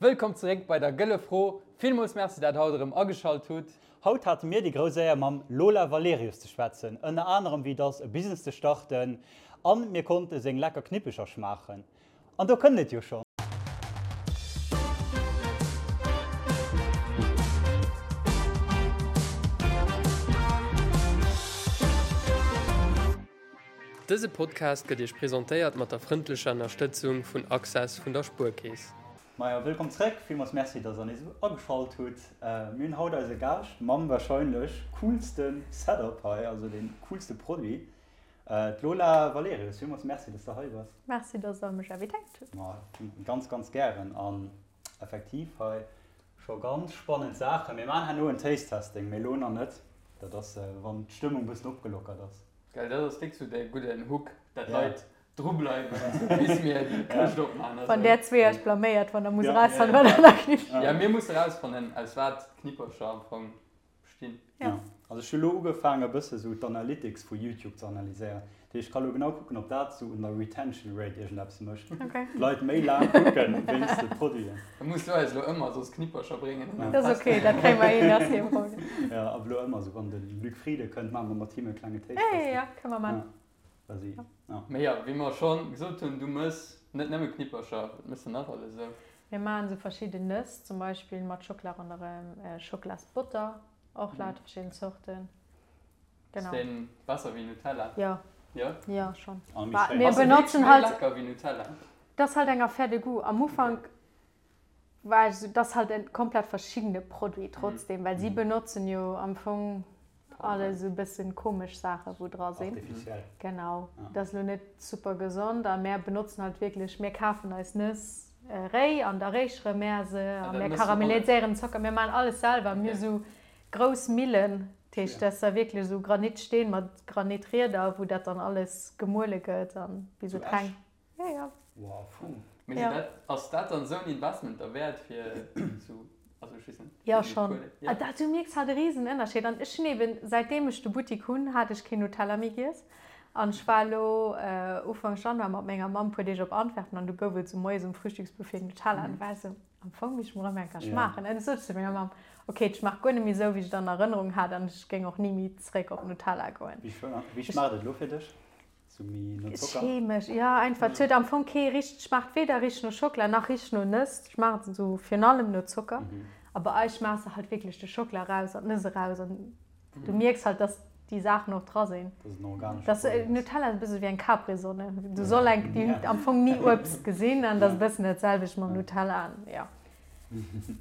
Wëllkomm zeréck bei der Gëlle Fro. Villmools Merci dat haut erëm ageschalt hutt. Haut hate mir déi grouss Éier mam Lola Valerius ze schwätzen, ënner anerem wéi et ass e Business ze starten an mir konnte seng lecker Knippecher schmaachen. An do kënnt et jo schonn. Dëse Podcast gëtt Iech presentéiert mat der frëndlecher Ënnerstëtzung vun Access vun der Spuerkeess. Majo, wëllkomm zréck. Villmools Merci, dass der nees ageschalt hutt. Mir hunn haut eise Gaascht mam warscheinlech coolste Setup hei, also dee coolste Produit, d'Lola Valerius. Villmools Merci, dass de hei bass. Merci, dass der mech invitéiert hutt. Ma ganz, ganz gären. An effektiv hei scho ganz spannend Saachen. Mir maachen herno en Taste-Testing, mee elo nach net. Dat ass, wann d'Stëmmung e bëssen opgelockert ass. Gell, dat ass déck sou däi gudden Hook, dat d'Leit dru bleiwen, bis mir déi Këscht opmaachen. Wann där zwee iech blaméiert, wann der musst erausfannen, wat an der Knippchen. Jo, mir musse erausfannen, aus wat d'Knippercher am Fong bestinn. Jo, also ech hu lo ugefaangen e bësse sou d'Analytics vu YouTube ze analyséieren. Dat heescht, ech ka lo genau kucken, ob dat sou un der Retention Rate iergendeppes mécht. D'Leit méi laang kucken wéinst de Produiten. Da muss du eis lo ëmmer soss Knippercher bréngen. Dat ass ok, dat kréie mer hin, dat ass kee Problem. Jo, ab elo ëmmer sou, wann de Luc Frieden kënnt, maache mer mat him e klenge Taste-Testing. Jo, jo, kënne mer maachen. Quasi, ja. Mee jo, wéi mer scho gesot hunn, du mëss net nëmme Knippercher, wat mëss de nach alles esou? Mir maachen esou verschidden Nëss, zum Beispill mat Schockela ronderëm, Schocklasbotter, och lauter verschidden Zorten. Genau. Ass deen besser wéi Nutella? Jo. Jo? Jo, schonn. A méi schéin. Mir benotzen halt. Ass e wierklech méi lecker wéi Nutella? Dat ass halt eng Affaire de goût. Am Ufank war ech esou, dat ass halt e komplett verschiddene Produit trotzdem, well si benotzen jo am Fong alles esou e bëssen komesch Saache wou dra sinn. Artificiel. Genau, dat ass elo net super gesond a mär benotzen halt wierklech, mir kafen eis Nëss réi an da réichere mär se a mär karamelliséieren den Zocker, mir maachen alles selwer, mir hu sou grouss Millen, dat heescht dat ass da wierklech esou Granitsteen mat Granitrieder wou dat dann alles gemuele gëtt an bis et reng. Ja, ja. Wow, fou. Mee sinn dat, ass dat dann esou en Investment derwäert fir sou, also ech weess net, Jo, schonn. Ah, dat, du mierks halt e risen Ënnerscheed. An ech hunn eben, säitdeem ech de Buttik hunn, hat ech keen Nutella méi giess. An ech war elo Ufank Januar mat menger Mamm e puer Deeg op Antwerpen an du gouf et sou moies um Frühstücksbuffet Nutella. An du war ech sou, am Fong misst ech mol erëm eng Kéier schmaachen. An du sot ech zu menger Mamm, ok, et schmaacht guer net méi sou, wéi ech et an Erënnerung hat an ech géing och ni méi zeréck op Nutella goen. Wéi schmaacht et elo fir dech? Sou méi no Zocker? Chemesch, jo einfach. Et huet am Fong kee richteg, schmaacht weder richteg no Schockela nach richteg no Nëss. Et schmaacht esou virun allem no Zocker. A bei eis schmaachs de halt wierklech de Schockela eraus an d'Nëss eraus an du mierks halt, dass déi Saachen och dra sinn. Dass et en organesche Produit ass. Nutella ass e bësse wéi eng Capri-Sonne. Du soll eng, déi hunn am Fong ni Uebst gesinn an dat ass e bëssen dat selwecht mam Nutella an jo.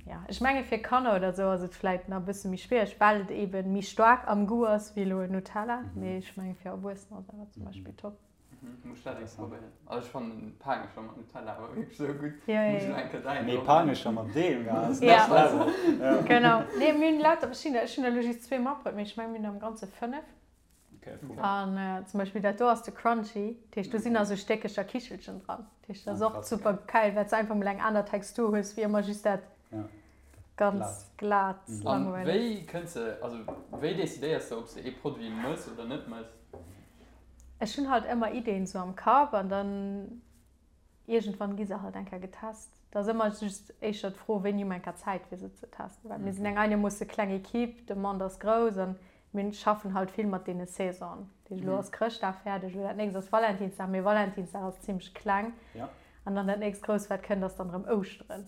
Ja, ech menge fir Kanner oder sou ass et vläit nach e bësse méi schwiereg, well et eben méi staark am Goût ass wéi elo en Nutella, mee ech menge fir Erwuessener ass awer zum Beispill top. Muss ech dat eng probéieren. Also ech fannen Paangecher mat Nutella awer wierklech sou gutt. Ja, Muss ech elo eng Kéier däin Mee och. Paangecher mat deem, ja, ass Ja. next level. Ja. Genau. Nee, mir hunn lauter verschiddener. Ech hunn elo just zwee matbruet, mee ech menge mir hunn am Ganze 5. An zum Beispill dat do ass de Crunchy, dat heescht do sinn nach sou Stéckecher Kichelchen dran. Dat heescht dat ass och super geil, well s de einfach mol eng aner Textur hues wéi ëmmer just dat ganz glat An langweileg. wéi kënns de, also wéi decidéiers de ob s de ee Produit mëss oder net mëss? Ech hunn halt ëmmer Ideen sou am Kapp an dann Iergendwann gi se halt eng Kéier getest. Et ass ëmmer just éischter d'Fro, wéini hu mer eng Kéier Zäit, fir se ze testen. Well mir sinn eng einermoosse kleng Equipe, d'Demande ass grouss an mir schaffen halt vill mat deene Saisonen. Dat heescht, elo ass Chrëschtdag fäerdeg, elo dat nächst ass Valentinsdag, mee Valentinsdag ass zimmlech kleng. An dann dat nächst Grousst, wat kënnt, ass dann erëm Ouschteren.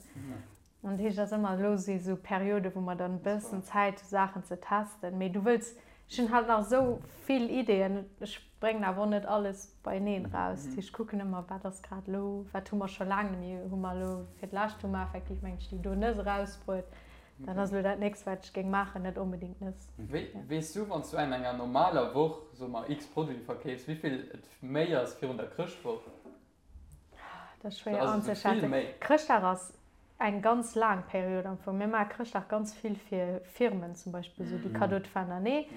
An dat heescht, et ass ëmmer, elo si sou Perioden, wou mer dann e bëssen Zäit hu Saachen ze testen. Mee du wëlls, ech hunn halt nach esou vill Ideeën, ech bréngen awer och net alles beieneen eraus. Dat heescht, ech kucken ëmmer, wat ass grad elo, wat hu mer scho laang net méi, hu mer elo fir d'lescht hu mer effektiv, mengen ech, déi do Nëss erausbruet. Dat ass elo dat nächst, wat ech géing maachen, net onbedéngt Nëss. Wéi weess du, wann s du an enger normaler Woch, soe mer, x Produite verkeefs, wéi vill et méi ass virun der Chrëschtwoch? Dat ass schwéier anzeschätzen. Chrëschtdag ass eng ganz laang Period am Fong. Mir maache Chrëschtdag ganz vill fir Firmen zum Beispill, esou déi Cadeaux de fin d'année.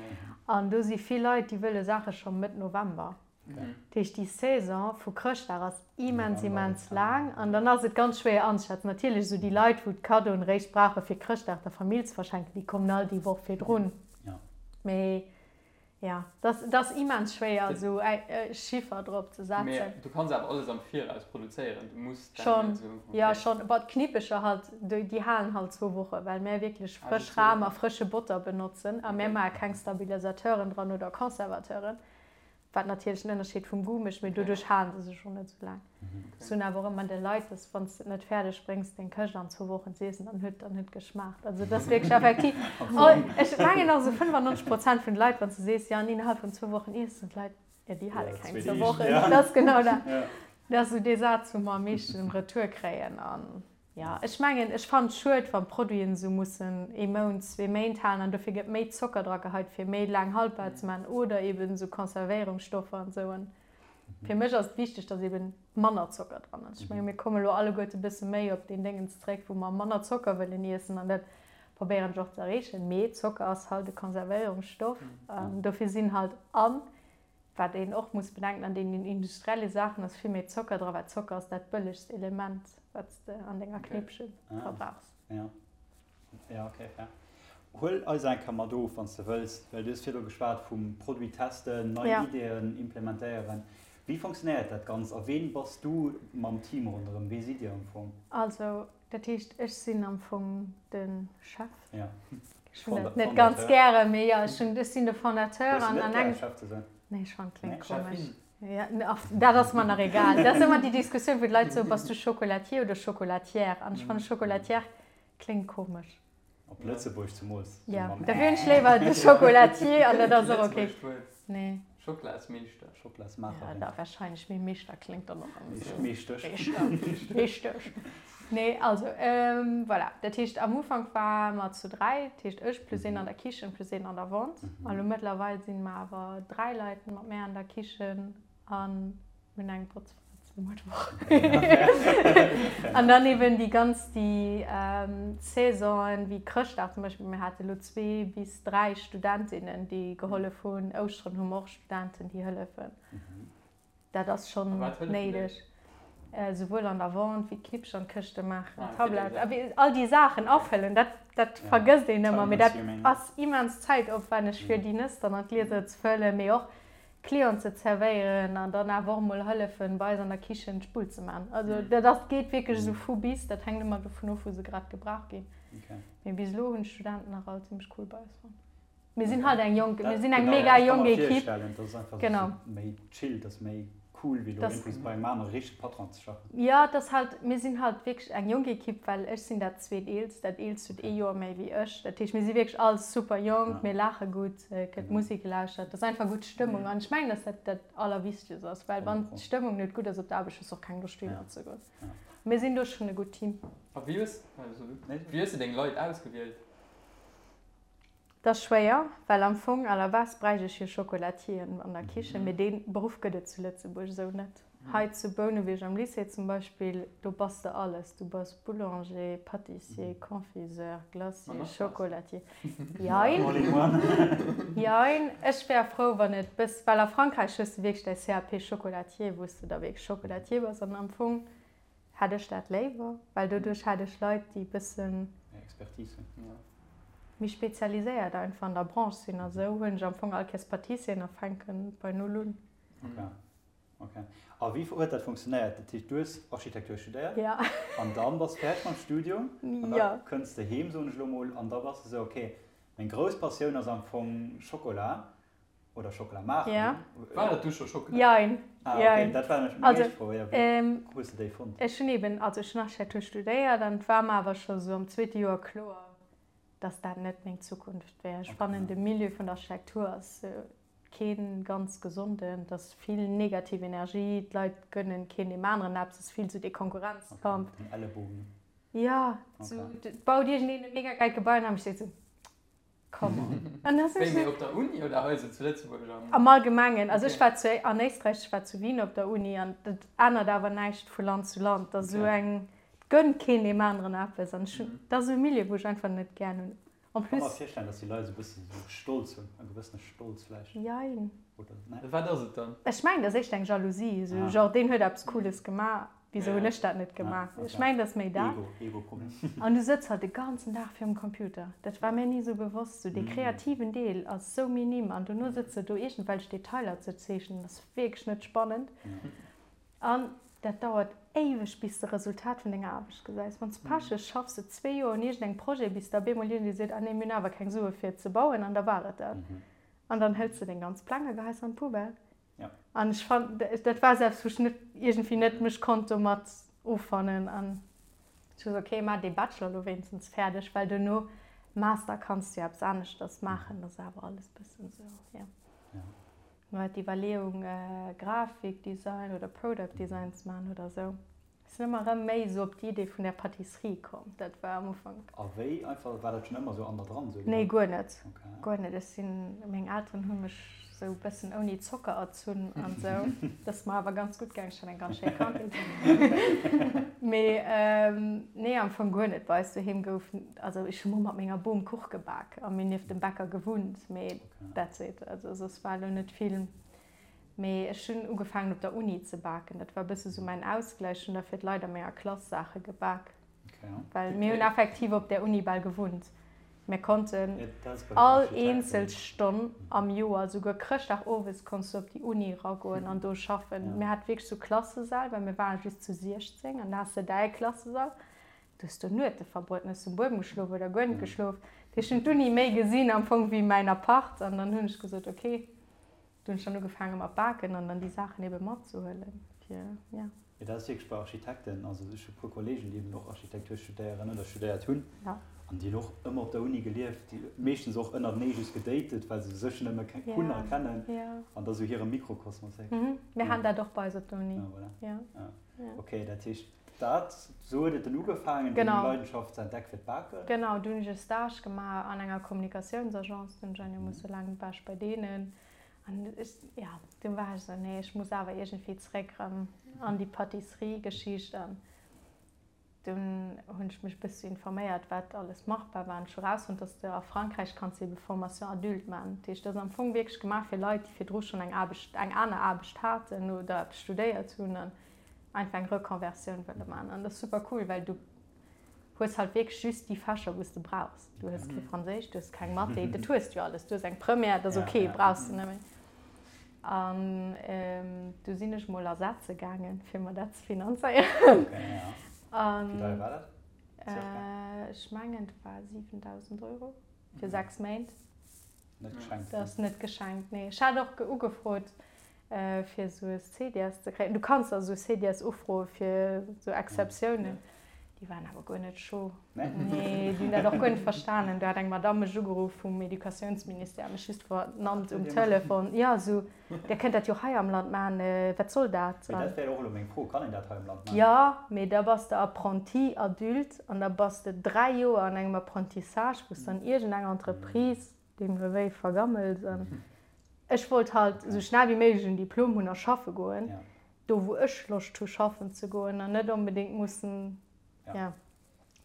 An do si vill Leit, déi wëlle Saache scho Mëtt November. Dat heescht, déi Saison vu Chrëschtdag ass immens, immens laang. An dann ass et ganz schwéier anzeschätzen. Natierlech esou déi Leit, wou d'Cadeauen eréischt brauche fir Chrëschtdag der Famill ze verschenken, déi kommen all déi Woch virdrun. Mee. Ja, dat ass immens schwéier esou e Chiffer drop ze setzen. Mee du kanns awer alles am Viraus produzéieren, du muss dat net esou. Schonn, jo schonn. Bon, d'Knippecher halt, déi halen halt zwou Woche, well mär wierklech frësch Ram a frësche Botter benotzen a mär maache keng Stabilisateuren dran oder Conservateuren. Wat natierlech en Ënnerscheed vum Goût mécht, mee doduerch halen se sech och net esou laang. Ech soen awer och ëmmer de Leit, dass wann s de et net fäerdeg bréngs deng Këscht an zwou Wochen z'iessen, dann huet dann huet geschmaacht. Also et ass wierklech effektiv, ech mengen och esou 95 Prozent vun de Leit, wann s de sees, jo an innerhalb vun zwou Wochen iess, soen d'Leit, jo déi hale keng zwou Wochen. Dat ass genau dat. Dat ass esou dee Saz, wou mer am meeschten Retour kréien. An Jo, ech mengen, ech fannen et schued, wann Produiten esou mussen ee Mount, zwee Méint halen an dofir gëtt méi Zocker dra geheit, fir méi laang haltbar ze maachen oder eben esou Konservéierungsstoffer an esou. An fir mech ass et wichteg, dass eben manner Zocker dran ass. Ech menge mir komme lo alleguerte bësse méi op deen Déngens zréck, wou mer manner Zocker wëllen iessen an dat probéieren ech och ze erreechen. Mee Zocker ass halt e Konservéierungsstoff, dofir sinn halt an Wat een och muss bedenken, an deenen industrielle Saachen ass vill méi Zocker dra, well Zocker ass dat bëllegst Element, wat s de an denger Knéppche verbrauchs. Ja, ja, okay, fair. Huel eis eng Kéier mat of, wann s de wëlls, well du hues virdru geschwat vum Produit testen, nei Ideeën implementéieren. Wéi fonctionnéiert dat Ganzt a ween bass du mam Team ronderëm? Wee sidd Dir am Fong? Also, Dat heescht, ech sinn am Fong de Chef. Ja. Ech hunn dat net ganz gären, mee jo, ech hunn, ech sinn de Fondateur an an engem. Chef ze sinn? Nee, ech fannen, kléngt komesch. Ja, dat ass mer nach egal. Dat ass ëmmer déi Diskussioun, wou d'Leit soen, Bass du Chocolatier oder Chocolatière? An ech fannen, Chocolatière kléngt komesch. Op Lëtzebuerg zemools. Ja, da wier ech léiwer de Chocolatier an dat ass och ok. Nee. Schokolasmeeschter. Schokolasmaacherin. Ja, da wahrscheinlech, mee Meeschter kléngt dann och ëmmer esou. Meeschtesch. Meeschtesch. Nee, also, voilà. Dat heescht, am Ufank ware mer zu 3, dat heescht ech plus een an der Kichen plus een an der Vente. A lo mëttlerweil si mer awer 3 Leit mat mär an der Kichen an Mir hunn eng Botzfra zum Mëttwoch. An dann eben déi ganz déi Saisonen, wéi Chrëschtdag zum Beispill. Mir hate lo zwee bis dräi Studentinnen, déi gehollef hunn. Ouschteren hu mer och Studenten, déi hëllefen. Dat ass schonn néideg. Souwuel an der Vente wéi d'Knippchen an d'Këschte maachen, Tablett, all déi Saachen afëllen. Dat, dat vergësst een ëmmer, mee dat ass immens zäitopwänneg, fir déi Nëss dann an d'Glieser ze fëllen, mee och Clienten ze zerwéieren an dann awer och mol hëllefen bei eis an der Kichen d'Spull ze man. Also dat ass, geet wierklech esou vu bis, dat hänkt ëmmer dovun of wou se grad gebraucht ginn. Mee bis elo hunn d'Studenten nach all zimmlech cool bei eis fonnt. Mir sinn halt eng jonk, mir sinn eng mega jonk Equipe. Genau. Méi chill, dat ass méi cool wéi elo iergendwou bei engem anere richtege Patron ze schaffen. Jo, et ass halt, mir sinn halt wierklech eng jonk Equipe, well ech sinn dat zweeteelst, dat eelst huet ee Joer méi wéi ech. Dat heescht, mir si wierklech all super jonk, mir laache gutt. Et gëtt Musek gelauschtert, et ass einfach gutt Stëmmung an ech mengen, dass dat dat Allerwichtegst ass, well wann d'Stëmmung net gutt ass op der Aarbecht, hues de och keng Loscht dohinner ze goen. Mir sinn do schonn e gutt Team. A wéi hues, wéi hues de deng Leit ausgewielt? Dat ass schwéier, well am Fong à la base bräicht ech jo Chocolatieren an der Kichen, mee dee Beruff gëtt et zu Lëtzebuerg esou net. Hei zu Bouneweg am Lycée zum Beispill, do bass de alles, du bass Boulanger, Pâtissier, Confiseur, Glacier, Chocolatier. Jein. Jein. Ech wär frou, wann et bëss, well a Frankräich hues de wierklech däi CAP Chocolatier, wou s de da wierklech Chocolatier bass. An am Fong hätt ech dat léiwer, well doduerch hätt ech Leit, déi bëssen. Méi Expertise hunn. Méi spezialiséiert einfach an der Branche sinn. A sou hunn ech am Fong all Kéiers Pâtissieren a fänken bei Null un. Okay. Ok. A wéi huet dat funktionéiert? Dat heescht, du hues Architektur studéiert? Ja. An dann bass de fäerdeg mam Studium? An da kënns de heem, soen ech elo mol, an da bass de esou, ok, meng grouss Passioun ass am Fong Schokola oder Schokola maachen. Ja. War et du scho Schokola? Jein. Ah, ok, dat war nämlech meng éischt Fro, jo. Wéi hues de déi fonnt? Ech hunn eben, also ech hunn Architektur studéiert an et war mer awer scho sou am zweete Joer kloer, dass dat net meng Zukunft wär. Ech fannen, de Milieu vun der Architektur ass Kee ganz gesonden, et ass vill negativ Energie, d'Leit gënnen keen deem aneren eppes, et ass vill sou dee Konkurrenzkampf. Den Ellebogen. Jo, sou et baut iergendeen e mega gäilt Gebai an da steet sou, come on. An da sinn ech sou. Wéi, mee op der Uni oder hei sou zu Lëtzebuerg am? Am Allgemengen, also ech war zu an Éisträich, ech war zu Wien op der Uni an dat ännert awer näischt vu Land zu Land, et ass sou eng, et gënnt keen deem aneren eppes an ech hunn, dat ass esou e Milieu wou ech einfach net gär hunn. En plus. Kann mer virstellen, dass déi Leit esou e bëssen esou Stolz hunn, e gewëssene Stolz vläicht. Jein. Oder, ne? Wat ass et dann? Ech mengen, dat ass éischter eng Jalousie, esou genre, deen huet eppes Cooles gemaach. Wisou hunn ech dat net gemaach? Ech mengen, dat ass méi dat. An du sëtz halt de ganzen Dag virum Computer. Dat war mir ni esou bewosst. Sou dee kreativen Deel ass sou minim an dono sëtz de do iergendwelch Detailer ze zeechnen, ass wierklech net spannend. An dat dauert éiweg bis de Resultat vun denger Aarbecht gesäis. Wann s Pech hues, schaffs de zwee Joer un iergendengem Projet, bis da bemol iergendee seet, ah nee, mir hunn awer keng Sue fir et ze bauen an da war et dat. An dann hëls de deng ganz Pläng a geheis se an d'Poubelle. Ja. An ech fand, dat war selbst, wou ech net iergendwéi net mech konnt domat offannen. An ech hu gesot, okay, maach dee Bachelor elo wéinstens fäerdeg, well duerno Master kanns du jo eppes aneschters maachen. Dat ass awer alles bëssen esou, jo. Ja. Mir war d'Iwwerleeung, Grafikdesign oder Product Design ze maachen oder esou. Ech sinn ëmmer erëm méi esou op d'Idee vun der Pâtisserie komm. Dat war am Ufank. A wéi einfach? War dat schonn ëmmer esou an der dran? Esou Nee, guer net. Okay. Guer net. Ech sinn, meng Elteren hu mech esou e bëssen ouni Zocker erzunn an esou. Dat ass mer awer ganz gutt gaangen. Ech hat eng ganz schéi Kandheet. Mee nee, am Fong guer net. Bei eis doheem gouf, also ech hu mol mat menger Bom Kuch gebak a mir nieft dem Bäcker gewunnt, mee that's it. Also soss war elo net vill. Mee ech hunn ugefaangen op der Uni ze baken. Dat war e bësse sou mäin Ausgläich. Ech hunn da fir d'Leit a menger Klass Saache gebak. Well mir hunn effektiv op där Uni bal gewunnt. Mir konnten all eenzel Stonn am Joer, souguer Chrëschtdag owes konns du op déi Uni eragoen an do schaffen. Mir hate wierklech sou Klassesäll, well mir ware just zu 16 an da has de däi Klassesall. Du hues do Nuete verbruet, hues um Buedem geschlof oder guer net geschlof. Dat heescht, ech hunn d'Uni méi gesinn am Fong wéi mäin Apart an dann hunn ech gesot, okay. Du hunn ech dann ugefaange mat baken an dann déi Saachen ebe matzehuelen fir, ja. Jo, dat ass wierklech bei Architekten, also ech hu puer Kollegen, déi eben och Architektur studéieren oder studéiert hunn an déi hunn och ëmmer op der Uni gelieft, déi meeschtens och ënnertenee just gedatet, well se sech nëmme hunn a kennen an da sou hire Mikrokosmos. Mir haten dat och bei eis op der Uni. Ah, voilà. Ja. Okay, dat heescht, Dat, sou huet et dann ugefaangen, deng Leidenschaft ze entdecken fir d'Baken? Genau, du hunn ech e Stage gemaach an enger Kommunikatiounsagence, du hunn ech einigermoosse laang war ech bei deenen an ech, ja, du war ech esou, nee, ech muss awer iergendwéi zeréck erëm an déi Pâtisserie-Geschicht an dunn hunn ech mech e bësse informéiert, wat alles machbar war an ech hu rausfonnt, dass de a Frankräich kanns de ebe Formation adulte maachen. Dat heescht, dat ass am Fong wierklech gemaach fir Leit, déi virdru schonn eng Aarbecht, eng aner Aarbecht haten oder eppes studéiert hunn an einfach eng Reconversioun wëlle man. An dat ass super cool, well du hues halt wierklech just déi Fächer, wou s de brauchs. Du hues kee Franséisch, du hues keng Mathé, dat hues du jo alles. Du hues eng Première, dat ass ok, brauchs de net méi. An du sinn ech mol ersetze gaangen, fir mer dat ze finanzéieren. Okay, ja. Wéi deier war dat? Circa? Ech mengen, et war 7.000 Euro fir 6 Méint. Net geschenkt. Dat ass net geschenkt, nee. Ech hat och ugefrot, fir esou e CDS ze kréien. Du kanns also esou CDS ufroe fir esou Exceptiounen. Déi waren awer guer net scho. Nee? Nee, déi hunn dat och guer net verstanen. Do hat eng Madamm mech ugeruff vum Educatiounsministère, mech just vernannt um Telefon. Jo, esou, Dir kënnt dat jo hei am Land maachen, wat soll dat? Mee dat wär och elo meng Fro, Kann een dat hei am Land maachen? Jo, mee da bass de Apprenti adulte an da bass de 3 Joer an engem Apprentissage, wou s de an iergendeng Entreprise deemno wéi vergammels. An ech wollt halt esou schnell wéi méiglech en Diplom hunn a schaffe goen, do wou ech Loscht hu schaffen ze goen an net onbedéngt mussen, jo.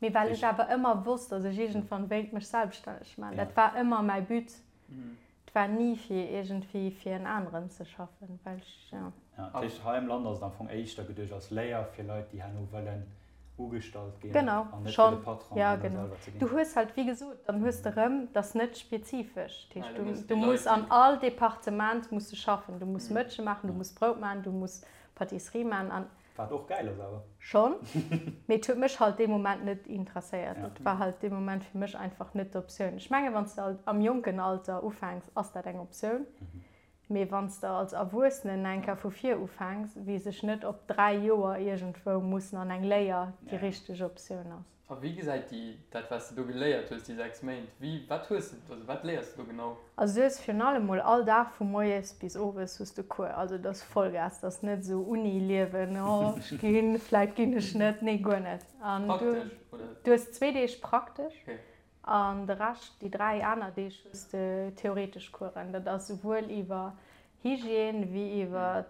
Mee well ech awer ëmmer wosst, datt ech iergendwann wéilt mech selbststänneg maachen, dat war ëmmer mäi But. Et war ni fir iergendwéi fir en aneren ze schaffen, well ech, jo. Ja, dat heescht, hei am Land ass et am Fong éischter geduecht als Léier fir Leit, déi herno wëllen ugestallt ginn Genau, an net fir schonn, de Patron ja an da genau. selwer ze ginn. Du hues halt, wéi gesot, dann hues de rëm, dat ass net spezifesch. Dat Ja, heescht, da du, muss du déi muss Leit, an déi. all Departement muss de schaffen. Du muss Mëtsche maachen, du muss Brout maachen, du muss Pâtisserie maachen an. Wat och gäil ass awer. Schonn, mee et huet mech halt dee Moment net interesséiert. Ja. Et war halt dee Moment fir mech einfach net d'Optioun. Ech mengen, wann s de am jonken Alter ufänks, ass dat eng Optioun. Mee wann s de als Erwuessenen eng Kéier vu vir ufänks, weess ech net, ob 3 Joer iergendwou mussen an eng Léier déi richteg Optioun ass. A wéi gesäit déi, dat wat s de do geléiert hues, déi 6 Méint, wéi, wat hues de, also wat léiers de do genau? Also du hues virun allem mol all Dag vu moies bis owes hues de Cours, also et ass Vollgas, et ass net esou Uni-Liewen, oh ech ginn, vläit ginn ech net, nee guer net. An du, Praktesch, oder? du hues zwee Deeg praktesch Okay. an de Rescht, déi 3 aner Deeg hues de theoretesch Coursen. Dat ass souwuel iwwer Hygiène wéi iwwer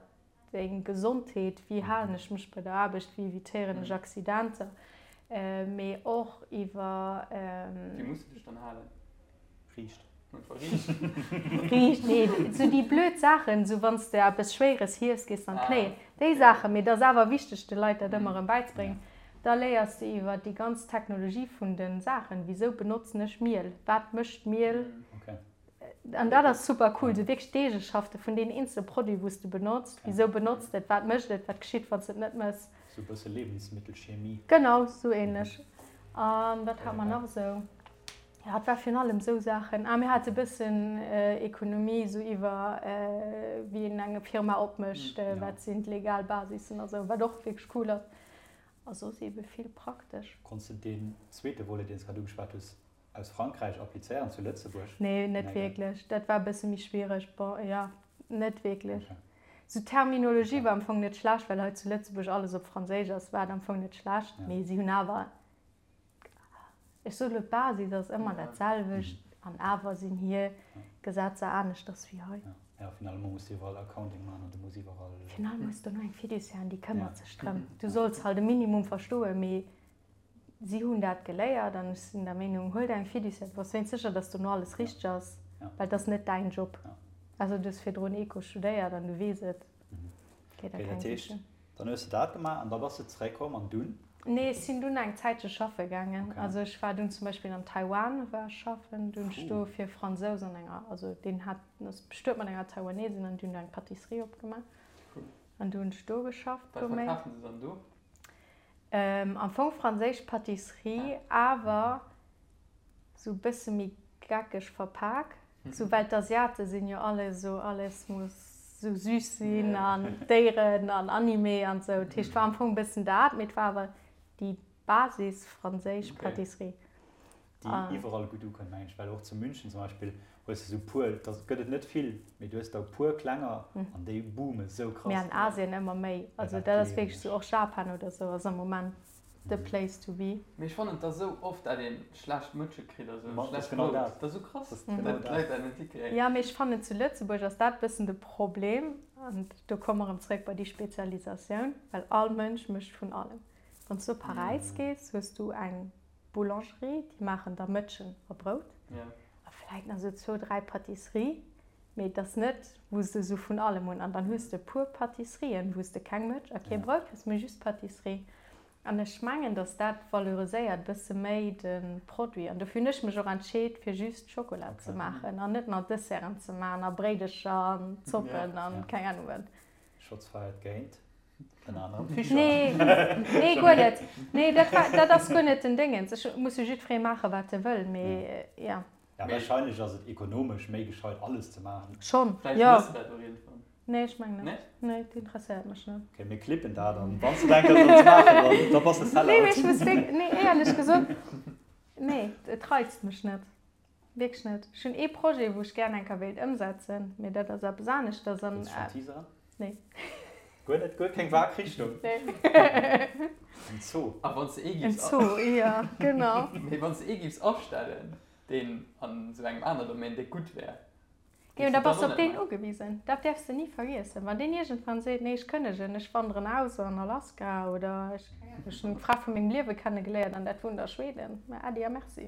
Deng Gesondheet, wéi halen ech mech bei der Aarbecht, wéi evitéieren ech Accidenter, mee och iwwer. Wéi muss de dech dann halen? Riicht. Riicht, nee, sou déi blöd Saachen, sou wann s de eppes Schwéieres hiefs, gees de an d'Knéien. Déi Saachen, mee et ass awer wichteg, de Leit dat ëmmer erëm bäizebréngen. Da léiers de iwwer déi ganz Technologie vun de Saachen, wisou benotzen ech Miel, wat mécht Miel, an dat ass super cool, sou wierklech d'Eegeschafte vun deenen eenzele Produit, wou s de benotzt, wisou benotz de et, wat mécht et, wat geschitt, wann s de et net méchs. Sou e bësse Lebensmittelchemie. Genau, sou ähnlech. A wat hat mer nach esou? Jo, et war virun allem esou Saachen. Ah, mir hate e bëssen Ekonomie, esou iwwer wéi een eng Firma opmécht, wat sinn d'legal Basissen a sou, wat och wierklech cool ass. A soss eebe vill praktesch. Konns de deen zweete Volet, deen s grad ugeschwat hues, aus Frankräich applizéieren zu Lëtzebuerg? Nee, net wierklech. Dat war e bësse méi schwiereg. Bon, jo, net wierklech. Sou d'Terminologie war am Fong net schlecht, well hei zu Lëtzebuerg alles op Franséisch ass, war et am Fong net schlecht, mee si hunn awer Ech soe lo, d'Basis ass ëmmer dat selwecht an awer sinn hir Gesetzer aneschters wéi hei. Jo, finalement muss de iwwerall Accounting maachen an du muss iwwerall. Finalement hues de do eng Fiduciaire an déi këmmert sech drëm. Du solls halt e Minimum verstoen, mee si hunn dat geléiert an ech sinn der Meenung, huel der eng Fiduciaire, du bass wéinst sécher, dass dono alles richteg ass, well et ass net däin Job. Also du hues virdrun Eco studéiert an du weess et. Okay, dat heescht, dann hues de dat gemaach an da bass de zeréckkomm an dunn? Nee, ech sinn dunn eng Zäitche schaffe gaangen. Okay. Also ech war dunn zum Beispill an Taiwan war ech schaffen. Dunn ech do fir Fransous an enger, also deen hat, ass bestuet mat enger Taiwanesin an déi hunn do eng Pâtisserie opgemaach. Cool. An du hunn ech do geschafft. Wat verkafen se dann do? Am Fong franséisch Pâtisserie, awer sou bësse méi geckeg verpak. Sou well d'Asiate sinn jo alle sou, alles muss sou süß sinn an Déieren an Anime an sou. Dat heescht war am Fong bëssen dat, mee et war awer déi Basis franséisch Pâtisserie. Déi iwwerall gutt ukënnt mengen ech, well och zu München zum Beispill hues de sou puer, da gëtt et net vill, mee du hues der e puer klenger an déi boome sou krass. Mee an Asien ëmmer méi, also dat ass wierklech sou, och Japan oder sou ass am Moment the place to be. Mee ech fannen et ass esou oft dat een schlecht Mëtsche kritt a sou schlecht Brout. Dat ass esou krass dat d'Leit dat net hikréien. Jo, mee ech fannen zu Lëtzebuerg ass dat bëssen de Problem an do komme mer erëm zréck bei déi Spezialisatioun, well all Mënsch mécht vun allem. Wann s du op Paräis gees, hues du eng Boulangerie, déi maachen da Mëtschen a Brout a vläit nach esou zwou, dräi Pâtisserie, mee et ass net wou s de esou vun allem hunn. An dann hues de e puer Pâtisserien, wou s de keng Mëtsch a kee Brout hues, mee just Pâtisserie. An ech mengen, datt dat valoriséiert bësse méi de Produit. An dofir hunn ech mech och entscheet, fir just Schokola ze maachen an net nach Desserten ze maachen a Bréidecher an Zoppen an keng Ahnung wat. Shots fired géint ënner anerem Fischer. Nee, nee, guer net. Nee, dat war, dat ass guer net den Déngens. Ech muss jo jiddweree maachen, wat e wëll, mee ja. Ja, wahrscheinlech ass et ekonomesch méi gescheit, alles ze maachen. Schonn, jo. Vläicht mëss de dat och iergendwann. Nee, ech mengen net. Nee? Nee, dat interesséiert mech net. Ok, mir clippen dat an wann s de denkt, dat ze maachen, dann, da bass de Sellout. Nee, mee ech muss wierk-, nee, éierlech gesot, nee, et reizt mech net. Wierklech net. Ech hunn ee Projet, wou ech gären eng Kéier wéilt ëmsetzen, mee dat ass eppes aneschters an. Wëlls de schonn teaseren? Nee. Guer net, guer keng vag Richtung? Nee. En Zoo. A wann s de ee En giffs. Zoo, jo, genau. Mee wann s de ee giffs astellen, deen an esou engem aner Domaine, dee gutt wär, Jo, da bass de op deen ugewisen. Dat däerfs de ni vergiessen. Wann deen iergendwann seet, nee, ech kënnegen, ech wanderen aus an Alaska oder ech, ech hunn d'Fra vu mengem Liewe kennegeléiert an dat wunnt a Schweden, ma äddi a merci.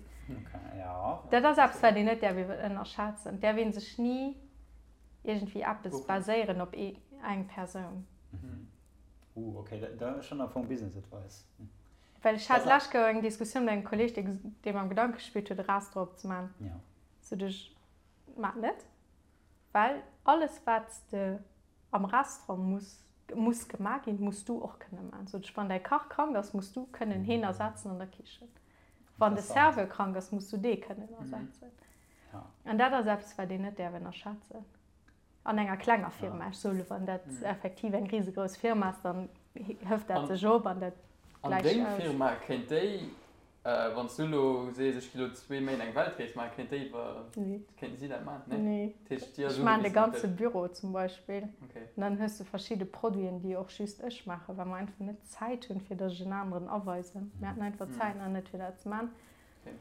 Dat ass eppes, wat een net däerf ënnerschätzen. Et däerf ee sech ni iergendwéi eppes baséieren op eng Persoun. Uh, okay, dat ass schonn am Fong Business Advice. Well ech hat d'lescht Kéier eng Diskussioun mat engem Kolleeg, dee mam Gedanke gespillt huet, e Restaurant opzemaachen. Sot ech, Maach net, well alles wat s de am Restaurant muss muss gemaach ginn, muss du och kënne maachen. Sot ech, wann däi Kach krank ass, muss du kënnen heen ersetzen an der Kichen. Wann de Serveur krank ass, muss du dee kënnen ersetzen. An dat ass eppes, wat een net däerf ënnerschätzen an enger klenger Firma. Ech soe lo, wann dat effektiv eng risegrouss Firma ass, dann hëft dat sech op an dat An gläicht deng aus. Firma, kéint déi Wann s du elo sees, ech gi lo zwee Méint eng Weltrees maachen, kéint déi iwwer, kéinten si dat maachen? Nee. Dat heescht, déi ass Ech maachen de ugewisen op ganze dech. Büro zum Beispill. Okay. An dann hues du verschidde Produiten, déi och just ech maachen, well mer einfach net d'Zäit hunn, fir datt ech en aneren aweisen. Mir haten einfach d'Zäit nach net, fir dat ze maachen. Okay.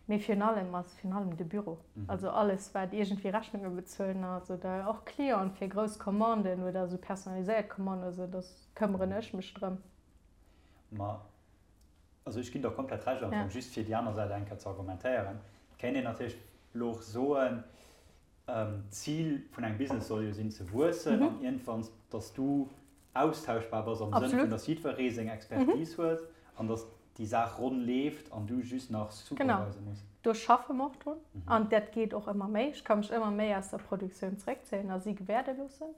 Mee virun allem ass virun allem de Büro. Also alles, wat iergendwéi Rechnunge bezuelen ass oder och Clienten fir grouss Commanden oder esou personaliséiert Commanden oder esou, da këmmeren ech mech drëm. Ma Also ech ginn der komplett Recht am Fong, just fir déi aner Säit eng Kéier ze argumentéieren. Et kéint een natierlech. Elo och soen, d'Zil vun engem Business soll jo sinn ze wuessen an iergendwann, dass du austauschbar bass am Sënn vun, dass jiddweree seng Expertise huet an dass déi Saach ronn leeft an du just nach supervisen muss. Genau, do schaffe mer och drun an dat geet och ëmmer méi. Ech ka mech ëmmer méi aus der Produktioun zeréckzéien a si gewäerde loossen.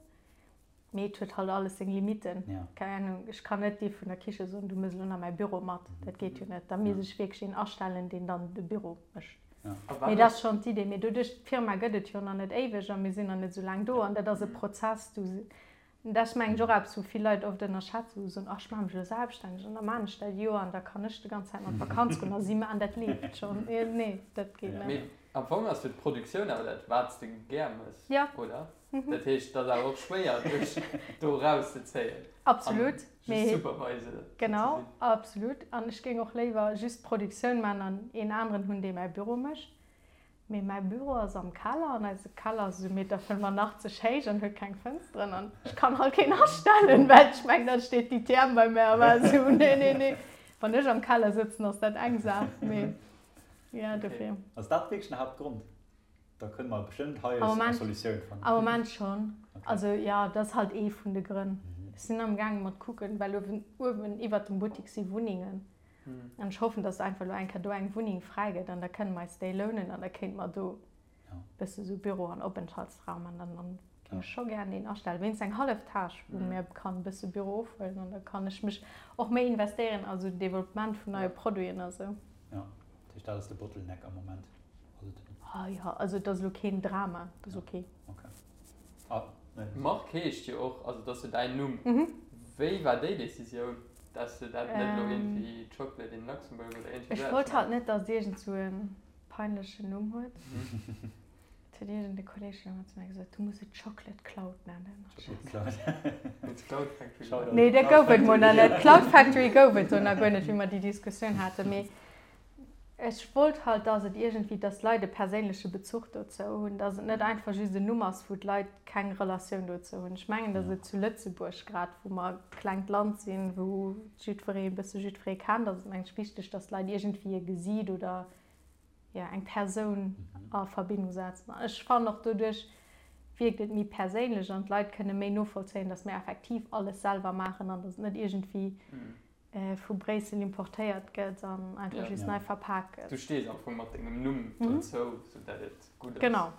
Mee et huet halt alles seng Limitten. Keng Ahnung, ech kann net dee vun der Kiche soen, du mëss elo nach mäi Büro mat. Dat geet jo net. Da misst ech wierklech een astellen, deen dann de Büro mécht. Mee dat ass schonn d'Idee. Mee doduerch, d'Firma gëtt et jo nach net éiweg a mir sinn nach net esou laang do an dat ass e Prozess. Du, dat ass mengen ech och eppes, wou vill Leit oft ënnerschätzen, wou se soen, ach ech maache mech elo selbststänneg an da maan ech dat Joer an da kann ech de ganz Zäit an d'Vakanz goen a si maachen dat leeft schonn. Nee, dat geet net. Mee am Fong ass jo d'Produktioun awer dat, wat s de gär mëss, oder? Dat heescht, et ass awer och schwéier, dech do erauszezéien. Absolut. An just Supervisor ze sinn. Genau, absolut. An ech géing och léiwer just d'Produktioun maachen an een aneren hunn, dee mäi Büro mécht. Mee mäi Büro ass am Keller an eise Keller ass esou Meter 85 héich an huet keng Fënsteren an ech kann halt keen astellen, well ech mengen, da steet déi TM bei mär a war esou, nee, nee, nee. Wann ech am Keller sëtzen, ass dat eng Saach, mee jo, dofir. Ass dat wierklech den Haaptgrond? Da kënne mer bestëmmt hei eng Solutioun fannen. Am Moment schonn. Also jo, dat ass halt ee vun de Grënn. Ech sinn am gaange mat kucken, well uewen, uewen iwwert dem Buttik si Wunnengen. An ech hoffen, datt einfach elo eng Kéier do eng Wunneng fräi gëtt an da kënne mer eis déi lounen an da kéinte mer do e bësse sou Büro an Openthaltsraum an dann dann géing ech scho gären een astellen, wéinst eng hallef Tâche, wou mir kann e bësse Büro ofhuelen an da kann ech mech och méi investéieren a sou Developpement vun neie Produiten a sou. Jo, dat heescht, dat ass de Bottleneck am Moment. Ah jo, also et ass elo keen Drama, et ass ok. Marc heescht jo och, also et ass jo däin Numm. Wéi war déi Decisioun, dass de dat net elo iergendwéi Chocolate in Luxembourg oder iergendwéi Ech wollt halt net, dass et iergend sou e peinlechen Numm huet. Et huet iergend e Kolleeg jo ëmmer zu mir gesot, du muss et Chocolate Cloud nennen. Chocolate Cloud. Cloud Factory. Nee, dat gouf et mol nach net. Cloud Factory gouf et do nach guer net, wéi mer déi Diskussioun haten. Mee Ech wollt halt, dass et iergendwéi, dass d'Leit e perséinleche Bezuch dozou hunn, dass et net einfach just en Numm ass, wou d'Leit keng Relatioun dozou hunn. Ech mengen, dass et zu Lëtzebuerg, grad wou mer e klengt Land sinn, wou jiddweree e bësse jiddweree kennt, ass et mengen ech wichteg, dass d'Leit iergendwéi e Gesiit oder, jo, eng Persoun a Verbindung setzen. An ech fannen och, doduerch wierkt et méi perséinlech an d'Leit kënne méi novollzéien, dass mir effektiv alles selwer maachen an dass et net iergendwéi vu Bréissel importéiert gëtt an einfach just nei verpak gëtt. Du stees am Fong mat dengem Numm dozou, sou dat et gutt ass. Genau.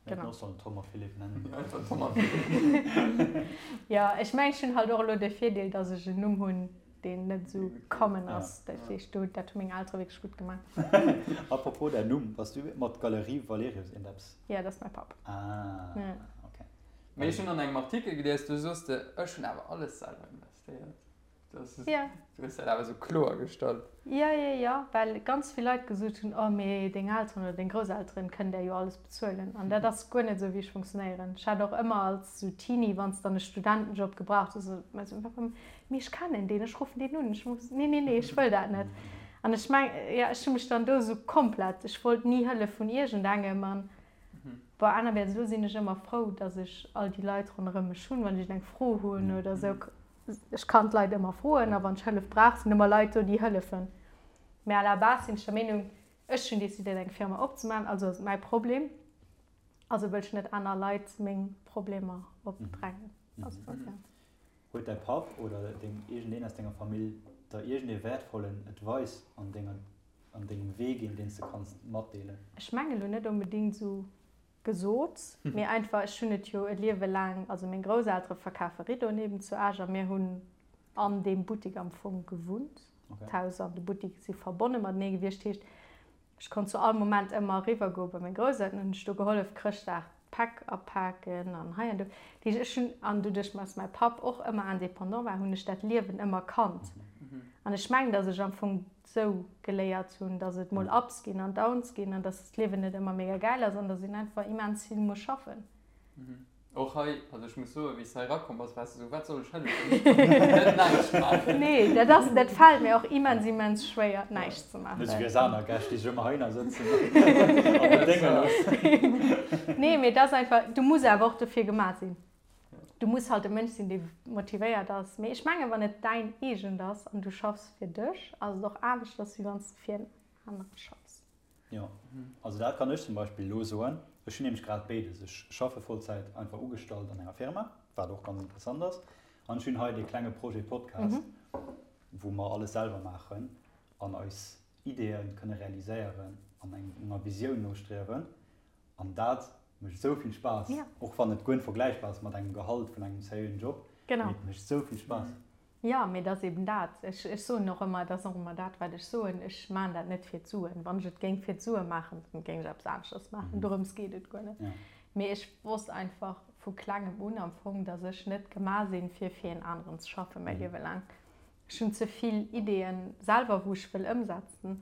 Mir hätten och sollen Tom a Philippe nennen. Jo, einfach Tom a Philippe. Jo, ech mengen, ech hunn halt och elo de Virdeel, datt ech en Numm hunn, deen net esou common ass. Dat heescht, do, dat hu meng Eltere wierklech gutt gemaach. Apropos däin Numm, bass du mat Galerie Valerius iergendeppes? Jo, dat ass mäi Papp. Ah, okay. Mee ech hunn an engem Artikel gelies, do soos de, ech hunn awer alles selwer investéiert. Ja. Du hues dat awer esou kloer gestallt. Jo, jo, jo, well ganz vill Leit gesot hunn, oh mee deng Elteren oder deng Grousselteren kënnen där jo alles bezuelen. An dat ass guer net esou wéi ech funktionéieren. Ech hat och ëmmer als esou Teenie, wann s dann e Studentenjob gebraucht hues, esou mei esou, mee ech kennen deen, ech ruffen deen un, ech muss, nee, nee, nee, ech wëll dat net. An ech meng, jo, ech hu mech dann do esou komplett, ech wollt ni Hëllef vun iergendengem an bon, anerwäerts elo sinn ech ëmmer frou, datt ech all déi Leit ronderëm mech hunn, wann ech eng Fro hunn oder esou. Ech kann d'Leit ëmmer froen a wann ech Hëllef brauch, sinn ëmmer Leit do, déi hëllefen. Mä à la base sinn ech der Meenung, ech hunn decidéiert eng Firma opzemaachen, also ass et mäi Problem, also wëll ech net aner Leit meng Problemer opdrängen. Also, ja. Huet däi Papp oder deng, iergendeen aus denger Famill der iergendee wäertvollen Advice an denger, an dengem Wee ginn, deen s de kanns matdeelen? Ech mengen elo net onbedéngt esou gesot, mee einfach, ech hunn et jo e Liewe laang, also meng Grousseltere verkafe Riddoen eben zu Esch a mir hunn an deem Buttik am Fong gewunnt. D'Haus an de Buttik si verbonne matenee gewiescht, heescht, ech konnt zu all Moment ëmmer eriwwer goe bei meng Grousselteren, hunn ech do gehollef Chrëschtdag d'Päck apaken an hei an do. Dat heescht, ech hunn, an doduerch dass mäi Papp och ëmmer indépendant war, hunn ech dat Liewen ëmmer kannt. An ech mengen, dass ech am Fong sou geléiert hunn, dass et mol Ups ginn an Downs ginn an dass d'Liewen net ëmmer mega gäil ass an dass een einfach immens vill muss schaffen. Och hei, also ech muss soen, wéi s de hei erakomm bass, waars de sou, wat soll ech hëllefen? Net näischt maachen. Nee, dat ass, dat fält mir och immens, immens schwéier, näischt ze maachen. Net sou wéi eis aner Gäscht, déi sech ëmmer heihinner sëtzen an bedénge loossen. Nee, mee et ass einfach, du muss awer och dofir gemaach sinn. Du muss halt e Mënsch sinn, dee motivéiert ass. Mee ech mengen, wann et däin eegent ass an du schaffs fir dech, ass et och aneschters, wéi wann s de fir en anere schaffs. Jo, also dat kann ech zum Beispill elo soen. Ech hunn nämlech grad béides. Ech schaffe Vollzäit einfach ugestallt an enger Firma, wat och ganz interessant ass. An ech hunn hei dee klenge Projet Podcast, wou mer alles selwer maachen an eis Ideeë kënne realiséieren an enger Visioun nostriewen. An dat mécht esou vill Spaass, och wann et guer net vergläichbar ass mat engem Gehalt vun engem seriöen Job, mee et mécht esou vill Spaass. Jo, mee et ass eben dat. Ech, ech soen och ëmmer, et ass och ëmmer dat, wat ech soen, ech maachen dat net fir d'Suen. Wann ech et géing fir d'Sue maachen, dann géing ech eppes aneschters maachen. Dorëms geet et guer net. Mee ech wosst einfach vu klengem un am Fong, datt ech net gemaach sinn, fir fir een aneren ze schaffen, mäi Liewe laang. Ech hunn ze vill Ideeën selwer, wou ech wëll ëmsetzen.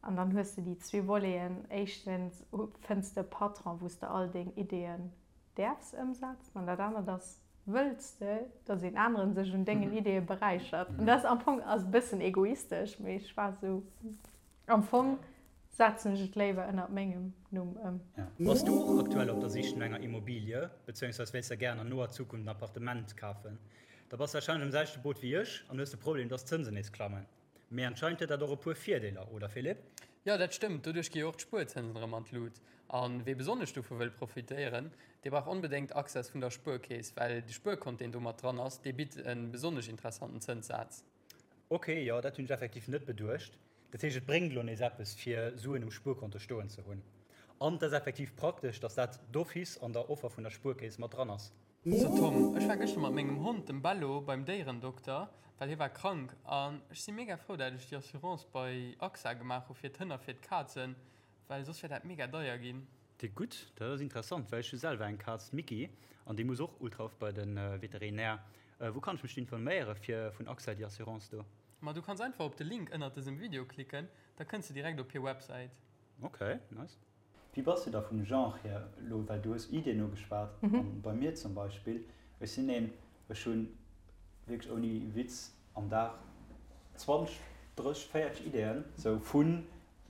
An dann hues de déi zwee Voleten, éischtens fënns de e Patron, wou s de all deng Ideeën däerfs ëmsetzen an dat anert ass, wëlls de, dass een aneren sech un dengen Ideeë beräichert. An dat am Fong ass e bëssen egoistesch, mee ech war esou, am Fong setzen ech et léiwer ënnert mengem Numm ëm. Bass du och aktuell op der Sich no enger Immobilie, bezéiungsweis wéilst der gären an noer Zukunft en Appartement kafen? Da bass warscheinlech am selwechte Boot wéi ech an hues de Problem, dass d'Zënsen nees klammen. Mee anscheinend huet dat och e puer Virdeeler, oder Philippe? Jo, dat stëmmt. Doduerch gi jo och d'Spuerzënsen erëm an d'Lut. A wee besonnesch dovu wëll profitéieren, dee brauch onbedéngt Access vun der Spuerkeess, well de Spuerkont, deen do mat dran ass, dee bitt e besonnesch interessanten Zënssaz. Ok, jo, dat hunn ech effektiv net beduecht. Dat heescht, et bréngt elo nees eppes, fir Suen um Spuerkonto stoen ze hunn. An et ass effektiv praktesch, dass dat d'office an der Offer vun der Spuerkeess mat dran ass. So Tom, ech war gëschter mat mengem Hond, dem Bello, beim Déierendokter, well hie war krank. An ech si mega frou dat ech déi Assurance bei AXA gemaach hu fir d'Hënn a fir d'Kazen, well soss wär dat mega deier ginn. Déi gutt, dat ass interessant, well ech hu selwer eng Kaz, d'Micky, an déi muss och ultra oft bei de Veterinär. Wou kann ech mech informéiere fir vun AXA déi Assurance do? Ma du kanns einfach op de Link ënnert dësem Video klicken, da kënns de direkt op hir Websäit. Ok, nice. Wéi bass du da vum Genre hier elo, well du hues Ideen ugeschwat, an bei mir zum Beispill, ech sinn een, ech hunn wierklech ouni Witz am Dag 20, 30, 40 Ideeën, sou vu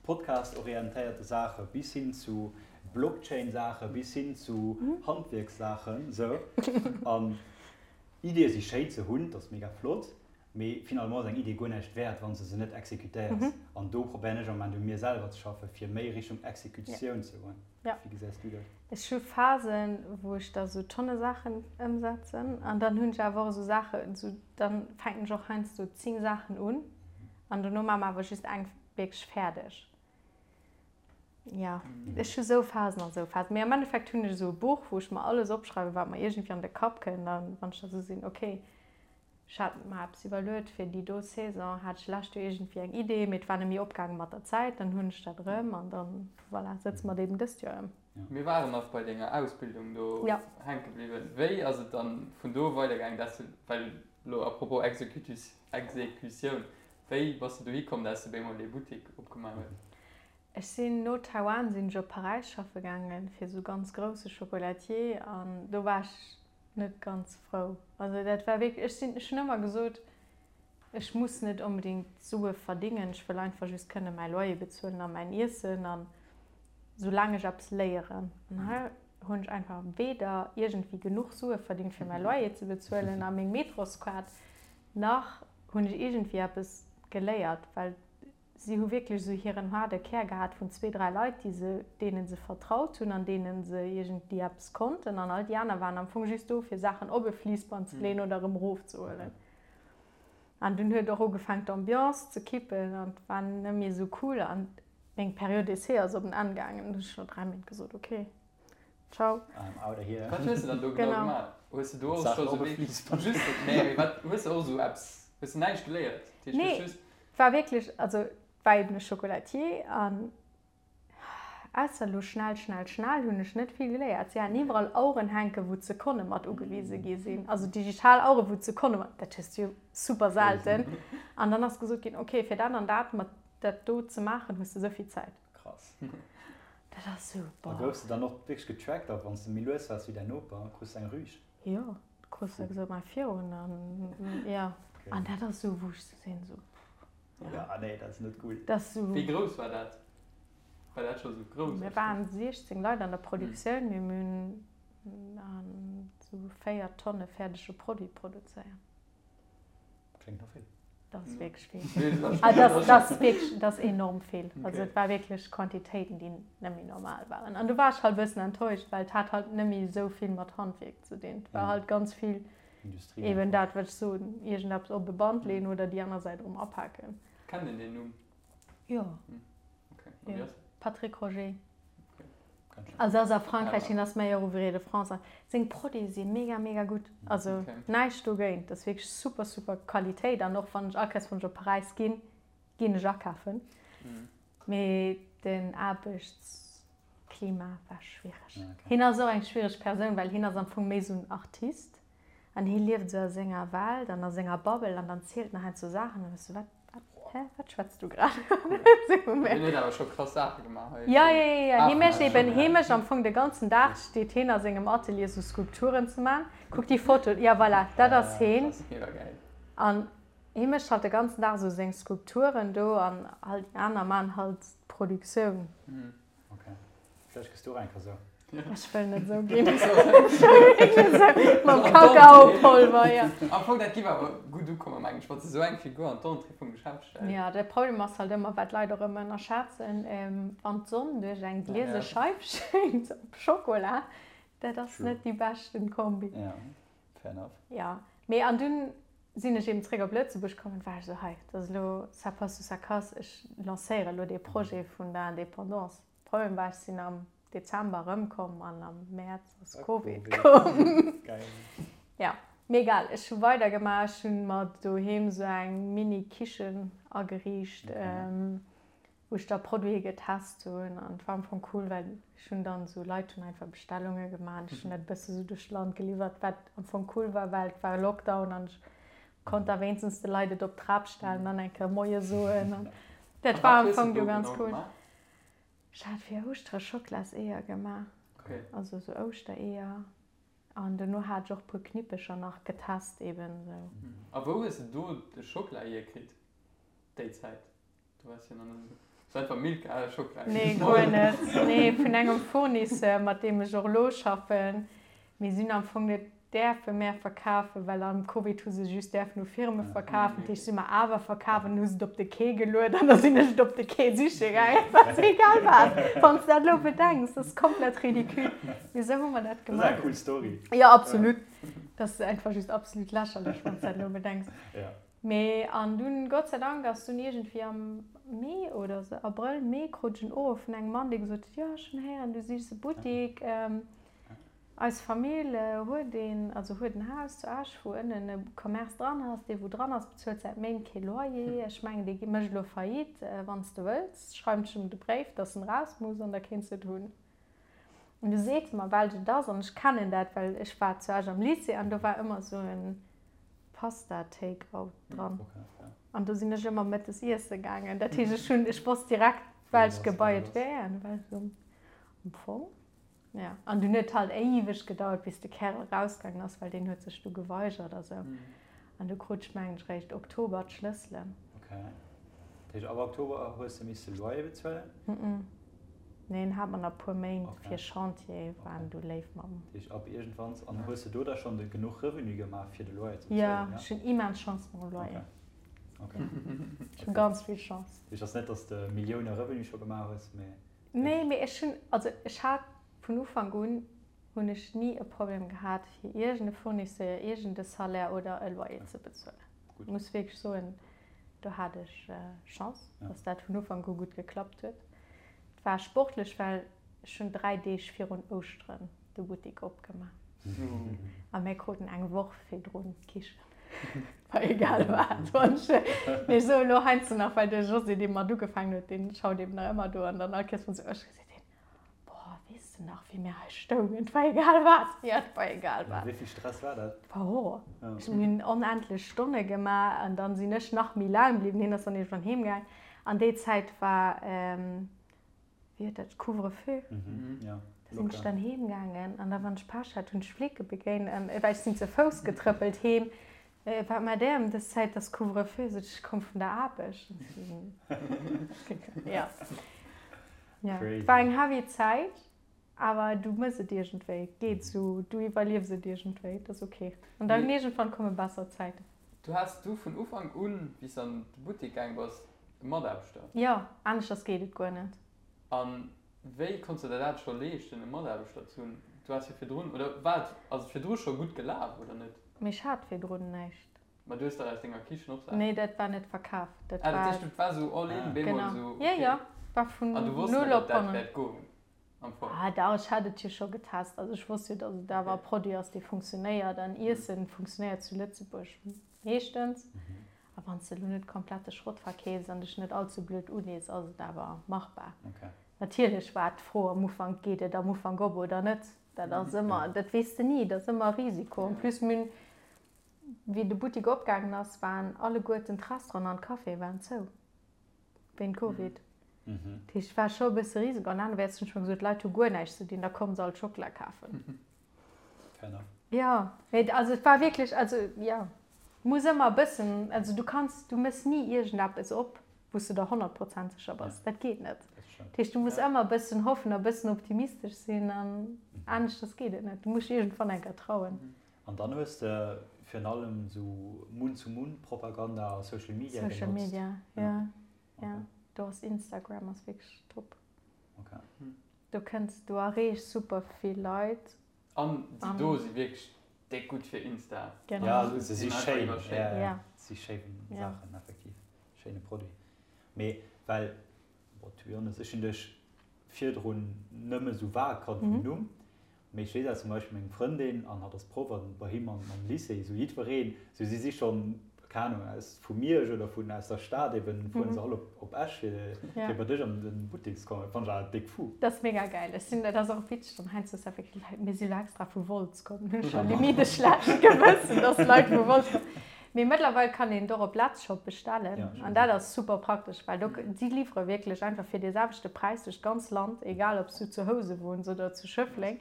Podcast-orientéierte Saache bis hin zu Blockchain-Saache bis hin zu Handwierkssaachen, sou. An Ideeë si schéin ze hunn, dat ass mega flott, Mee finalement ass eng Idee guer näischt wäert, wann s de se net exekutéiers. An do probéieren ech am Moment u mir selwer ze schaffen, fir méi Richtung Exekutioun ze goen. Wéi gesäis du dat? Ech hu Phasen, wou ech da sou Tonne Saachen ëmsetzen. An dann hunn ech awer och esou Saachen, esou dann fänken ech och heiansdo 10 Saachen un an dono maache mer awer just eng wierklech fäerdeg. Jo, ech hu sou Phasen an sou Phasen. Mee am Endeffekt hunn ech esou e Buch, wou ech mer alles opschreiwen, wat mer iergendwéi an de Kapp kënnt. An wann ech da sou sinn, okay, Ech hat mer eppes iwwerluet fir déi do Saison, hat ech lescht Joer iergendwéi eng Idee, mee et war net méi opgaange mat der Zäit, dann hunn ech dat erëm an dann, voilà, sëtze mer et eben dëst Joer ëm. Mir waren nach bei denger Ausbildung do hänke bliwwen. Wéi ass et dann vun do weidergaangen, dass du, well elo à propos Exekutioun, wéi bass de dohi komm, dass de bémol dee Buttik opgemaach hues? Ech sinn no Taiwan sinn ech op Paräis schaffe gaangen, fir esou ganz grousse Chocolatier an do war ech net ganz frou. Also dat war wierklech, ech sinn, ech hunn ëmmer gesot, ech muss net onbedéngt Sue verdingen, ech wëll einfach just kënne mäi Loyer bezuelen a mäin Iessen an soulaang ech eppes léieren. An hei hunn ech einfach weder iergendwéi genuch Sue verdingt fir mäi Loyer ze bezuelen a meng Metroskaart, nach hunn ech iergendwéi eppes geléiert, well Si hu wierklech esou hiren haarde Kär gehat vun zwee, dräi Leit, déi se, deene se vertraut hunn an deene se iergendwéi eppes konnten. An all déi aner waren am Fong just do, fir Saachen op e Fliissband ze leeën oder erëm erofzehuelen. An dunn huet och ugefaangen, d'Ambiance ze kippen an et war net méi esou cool. An meng Période d'essai ass op en Enn gaangen. Dunn hunn ech no dräi Méint gesot, ok, ciao. I'm out of here. Wat hues de dann do genau gemaach? Hues de do och scho sou wéi just, nee, mee wat hues de och esou eppes, hues de näischt geléiert? Dat heescht, du hues just. War wierklech, also et war eben e Chocolatier an ausser elo schnell, schnell, schnell hunn ech net vill geléiert. Si haten iwwerall Aueren hänken, wou d'Sekonne mat ugewise gi sinn, also digital Aueren, wou d'Sekonne mat, dat hues du jo super selten. An dann ass gesot ginn, okay, fir dat an dat mat dat do ze maachen, hues de esou vill Zäit. Krass. Dat ass sou, A boah. Goufs de dann och wierklech getrackt a wann s de méi lues waars wéi däin Noper, krus de eng Rüg? Jo. Krus de gesot, mei virun an jo. An dat ass esou, wou ech sou sinn, esou pff. Ja, nee, dat ass net gutt. Dat ass esou. Wéi grouss war dat? War dat scho sou grouss? Mir waren 16 Leit an der Produktioun, mee mir hunn esou 4 Tonne fäerdege Produit produzéiert. Kléngt no vill. Dat ass wierklech vill. Ah, dat ass wierklech, dat ass enorm vill. Also et war wierklech Quantitéiten, déi net méi normal waren. An du war ech halt e bëssen enttäuscht, well et hat halt net méi esou vill mat Handwierk ze dinn. Et war halt ganz vill eben dat, wat ech soen, iergendeppes op e Band leeën oder déi aner Säit erëm apaken. Kennt een deen Numm? Jo. Jo. Patrick Roger. Also ass a Frankräich, hien ass Meilleur Ouvrier de France a seng Produite si mega mega gutt. Also näischt dogéint, dat ass wierklech super super Qualitéit an och wann ech all Kéiers wann ech op Paräis ginn, ginn ech akafen. Mee den Aarbechtsklima war schwiereg. Hien ass och eng schwiereg Persoun, well hien ass am Fong méi esou en Artist an hie lieft esou a senger Welt an a senger Bubble an dann zielt en heiansdo Saachen an da bass du wat? Hä, wat schwätz du grad? Hien huet awer scho krass Saache gemaach hei. Ja, ja, ja, ja. Hie mécht eben, hie mécht am Fong de ganzen Dag steet hien a sengem Atelier sou Skulpturen ze man. Kuck déi Foto, ja voilà, dat ass hien. Mega gäil. An hie mécht halt de ganzen Dag sou seng Skulpturen do an halt déi aner man halt d'Produktioun. Ok. Vläicht gëss du och eng Kéier sou. Ech wëll net sou ginn. Mam Kakaopolver, jo. Am Fong, dat giff awer gutt ukommen, mengen ech, wann s de sou eng Figur an d'Entrée vum Geschäft stells. Jo, de Problem ass halt ëmmer, wat d'Leit och ëmmer ënnerschätzen, wann d'Sonn duerch eng gliese Scheif schéngt op Schokola, dat ass net déi beschten Kombi. Jo, fair enough. Jo, mee an dunn sinn ech eben zréck op Lëtzebuerg komm an war ech sou, hei, dat ass elo ça passe ou ça casse, ech lancéiere elo dee Projet vun der Indépendance. Problem war, ech sinn am Dezember erëmkomm an am Mäerz ass Covid komm. Ja, mee egal, ech hu weidergemaach. Ech hunn mer doheem sou eng Mini-Kichen ageriicht, wou ech da Produite getest hunn an et war am Fong cool, well ech hunn dann sou, Leit hunn einfach Bestellunge gemaach an ech hunn dat e bësse sou duerch d'Land geliwwert, wat am Fong cool war, well et war Lockdown an ech konnt da wéinstens de Leit et op d'Trap stellen an eng Kéier Moie soen an dat war am Fong du ganz cool. Ech hat fir Ouschtere Schocklaseeër gemaach, also sou Ouschtereeër. An dono hat ech och puer Knippecher nach getest eben sou. A wou hues de do de Schockela hierkritt déi Zäit? Du waars jo nach net esou. Hues einfach Milka Schockela Nee, guer net. Nee, vun engem Fournisseur, mat deem ech och elo schaffen. Mir sinn am Fong net däerfe mär verkafen, well am Covid hu se just däerfen u Firme verkafen. Dat heescht, si mer awer verkaf an hu se et op de Quai geluet an da sinn ech et op de Quai siche gaangen. Et war egal wat, wann s de dat elo bedenks, dat ass komplett ridicule. Mee esou hu mer dat gemaach. Dat ass eng cool Story. Jo, absolut. Dat ass einfach just absolut lächerlech, wann s de dat elo bedenks. Mee an dunn, Gott sei Dank, ass dunn iergendwéi am Mee oder esou, Abrëll, Mee, krut ech en Uruff vun engem Mann, dee gesot huet, jo, ech hunn héieren, du sichs e Buttik. Eis Famill huet een, also huet en Haus zu Esch, wou ënnen e Commerce dran ass. Dee wou dran ass, bezuelt säit Méint kee Loyer. Ech mengen, dee mécht elo Faillite. Wann s de wëlls, schreiwen ech em de Bréif, dass en raus muss an da kéints de et hunn. An du seet mer, welch et ass. An ech kennen dat, well ech war zu Esch am Lycée an do war ëmmer esou e Pasta-Take-out dran. An do sinn ech ëmmer mëttes iesse gaangen. Dat heescht, ech hunn, ech wosst direkt, welcht Gebai et wär. An du war ech esou, Am Fong? Ja, an dunn huet halt éiweg gedauert, bis de Kärel erausgaangen ass, well deen huet sech du geweigert a sou. An du krut ech, mengen ech, réischt Oktober d'Schlësselen. Ok. Dat heescht, ab Oktober hues de misse Loyer bezuelen? Nee, en hat mer nach e puer Méint fir Chantier, waren du léif mat mer. Dat heescht, ab iergendwann. An hues de do da schonn de genuch Revenu gemaach, fir de Loyer ze bezuelen? Jo, ech hunn immens Chance mam Loyer. Ok. Ech hu ganz vill Chance. Dat heescht, ass net, datt s de Millioune Revenu scho gemaach hues, mee. Nee, mee ech hunn, also ech hat vun Ufank un, hunn ech ni e Problem gehat fir iergend e Fournisseur, iergend e Salaire oder e Loyer ze bezuelen. Gutt. Muss wierklech soen, do hat ech Chance, dass dat vun Ufank u gutt geklappt huet. Et war sportlech, well ech hunn 3 Deeg virun Ouschteren de Buttik opgemaach a mir kruten eng Woch virdrun d'Kichen. War egal wat. Wann ech, mee ech soe lo heiansdo nach, well de José, dee mat ugefaangen huet, dee schaut eben nach ëmmer do an dann all Kéiers wann se Ouschteren seet hien, Boah, weess de nach, wéi mir hei stoungen? Et war egal wat. Jo, et war egal wat. Wéi vill Stress war dat? Et war Horror. Ech hunn, mir hunn onendlech Stonne gemaach an dann sinn ech nach méi laang bliwwen. Hien ass dann iergendwann heem gaang. An déi Zäit war, wéi huet dat, Couvre-feu. Da sinn ech dann heem gaangen an da wann ech Pech hat, hunn ech Flicke begéint an well ech sinn ze Fouss getrëppelt heem, Wat maacht där ëm dës Zäit, et ass Couvre-feu? Sot ech, ech komm vun der Aarbecht. Jo, jo, et war eng heavy Zäit, awer du mëss et iergendwéi, et geet esou, du iwwerliefs et iergendwéi, et ass ok. An dann iergendwann komme besser Zäiten. Du has du vun Ufank un, wéi s de an de Buttek gaang bass, e Mataarbechter? Jo, aneschters geet et guer net. A wéi konns de der dat scho leeschten, e Mataarbechter ze hunn? Du has jo virdrun, oder war et, ass et virdru scho gutt gelaf, oder net? Mee ech hat virdrun näischt. Ma du hues dach aus denger Kichen och Saachen. Nee, dat war net verkaf. Dat war. Ah, dat heescht, et war esou all in, bemol esou, okay. Genau, jo, jo, war vun null op honnert. An du wosst net, ob dat wäert goen? Am Fong. Ah dach, ech hat et jo scho getest. Also ech wosst jo, datt et awer e Produit ass, dee funktionéiert. An Iessen funktionéiert zu Lëtzebuerg meeschtens. A wann s de elo net komplette Schrott verkeefs an dech net all ze blöd ulees, ass et awer machbar. Natierlech war d'Fro am Ufank, geet et am Ufank op oder net? Dat ass ëmmer, dat weess de ni, dat ass ëmmer e Risiko. En plus, mir hunn, wéi de Buttik opgaangen ass, waren alleguerten d'Restauranten an d'Caféë waren zou. Wéint Covid. Dat heescht, et war scho e bësse Risiko. An anerwäerts hunn ech mer gesot, d'Leit hu guer näischt ze dinn, da komme se alt Schockela kafen. Fair enough. Jo, mee also et war wierklech, also jo, muss ëmmer e bëssen, also du kanns, du méchs ni iergendeppes op, wou s de der 100 Prozent sécher bass. Dat geet net. Dat heescht, du muss ëmmer e bëssen hoffen a bëssen optimistesch sinn an aneschters geet et net. Du muss dech iergendwann eng Kéier trauen. An dann hues de virun allem sou Mund-zu-Mund-Propaganda a Social Media genotzt? Social Media, jo. Jo, do ass Instagram ass wierklech top. Ok. Do kënns, du erreechs super vill Leit. An déi do si wierklech déck gutt fir Insta. Genau. Ja, se si schéin. Ja, si schéin Saachen, effektiv. Schéine Produit. Mee well, bon, to be honest, ech hunn dech virdrun nëmme sou vag kannt vum Numm. Mee ech weess aus zum Beispill meng Frëndin, an hatt ass Proff an bei him am Lycée, esou jiddwereen, esou si si schonn, keng Ahnung, aus vu Miersch oder vun aus der Stad eben, fueren se all op op Esch fir fir bei dech an den Buttek ze kommen. Dat fannen ech awer déck fou. Dat ass mega gäil. Ech sinn, dat ass och witzeg dann heiansdo dass effektiv Leit, mir si lo extra vu Wolz komm, hunn ech scho limite e schlecht Gewëssen, dass Leit vu Wolz kommen. Mee mëttlerweil kann een et och op Letzshop bestellen an dat ass super praktesch, well do, si liwwere wierklech einfach fir dee selwechte Präis duerch d'ganz Land, egal ob s du zu Housen wunns oder zu Schëffleng.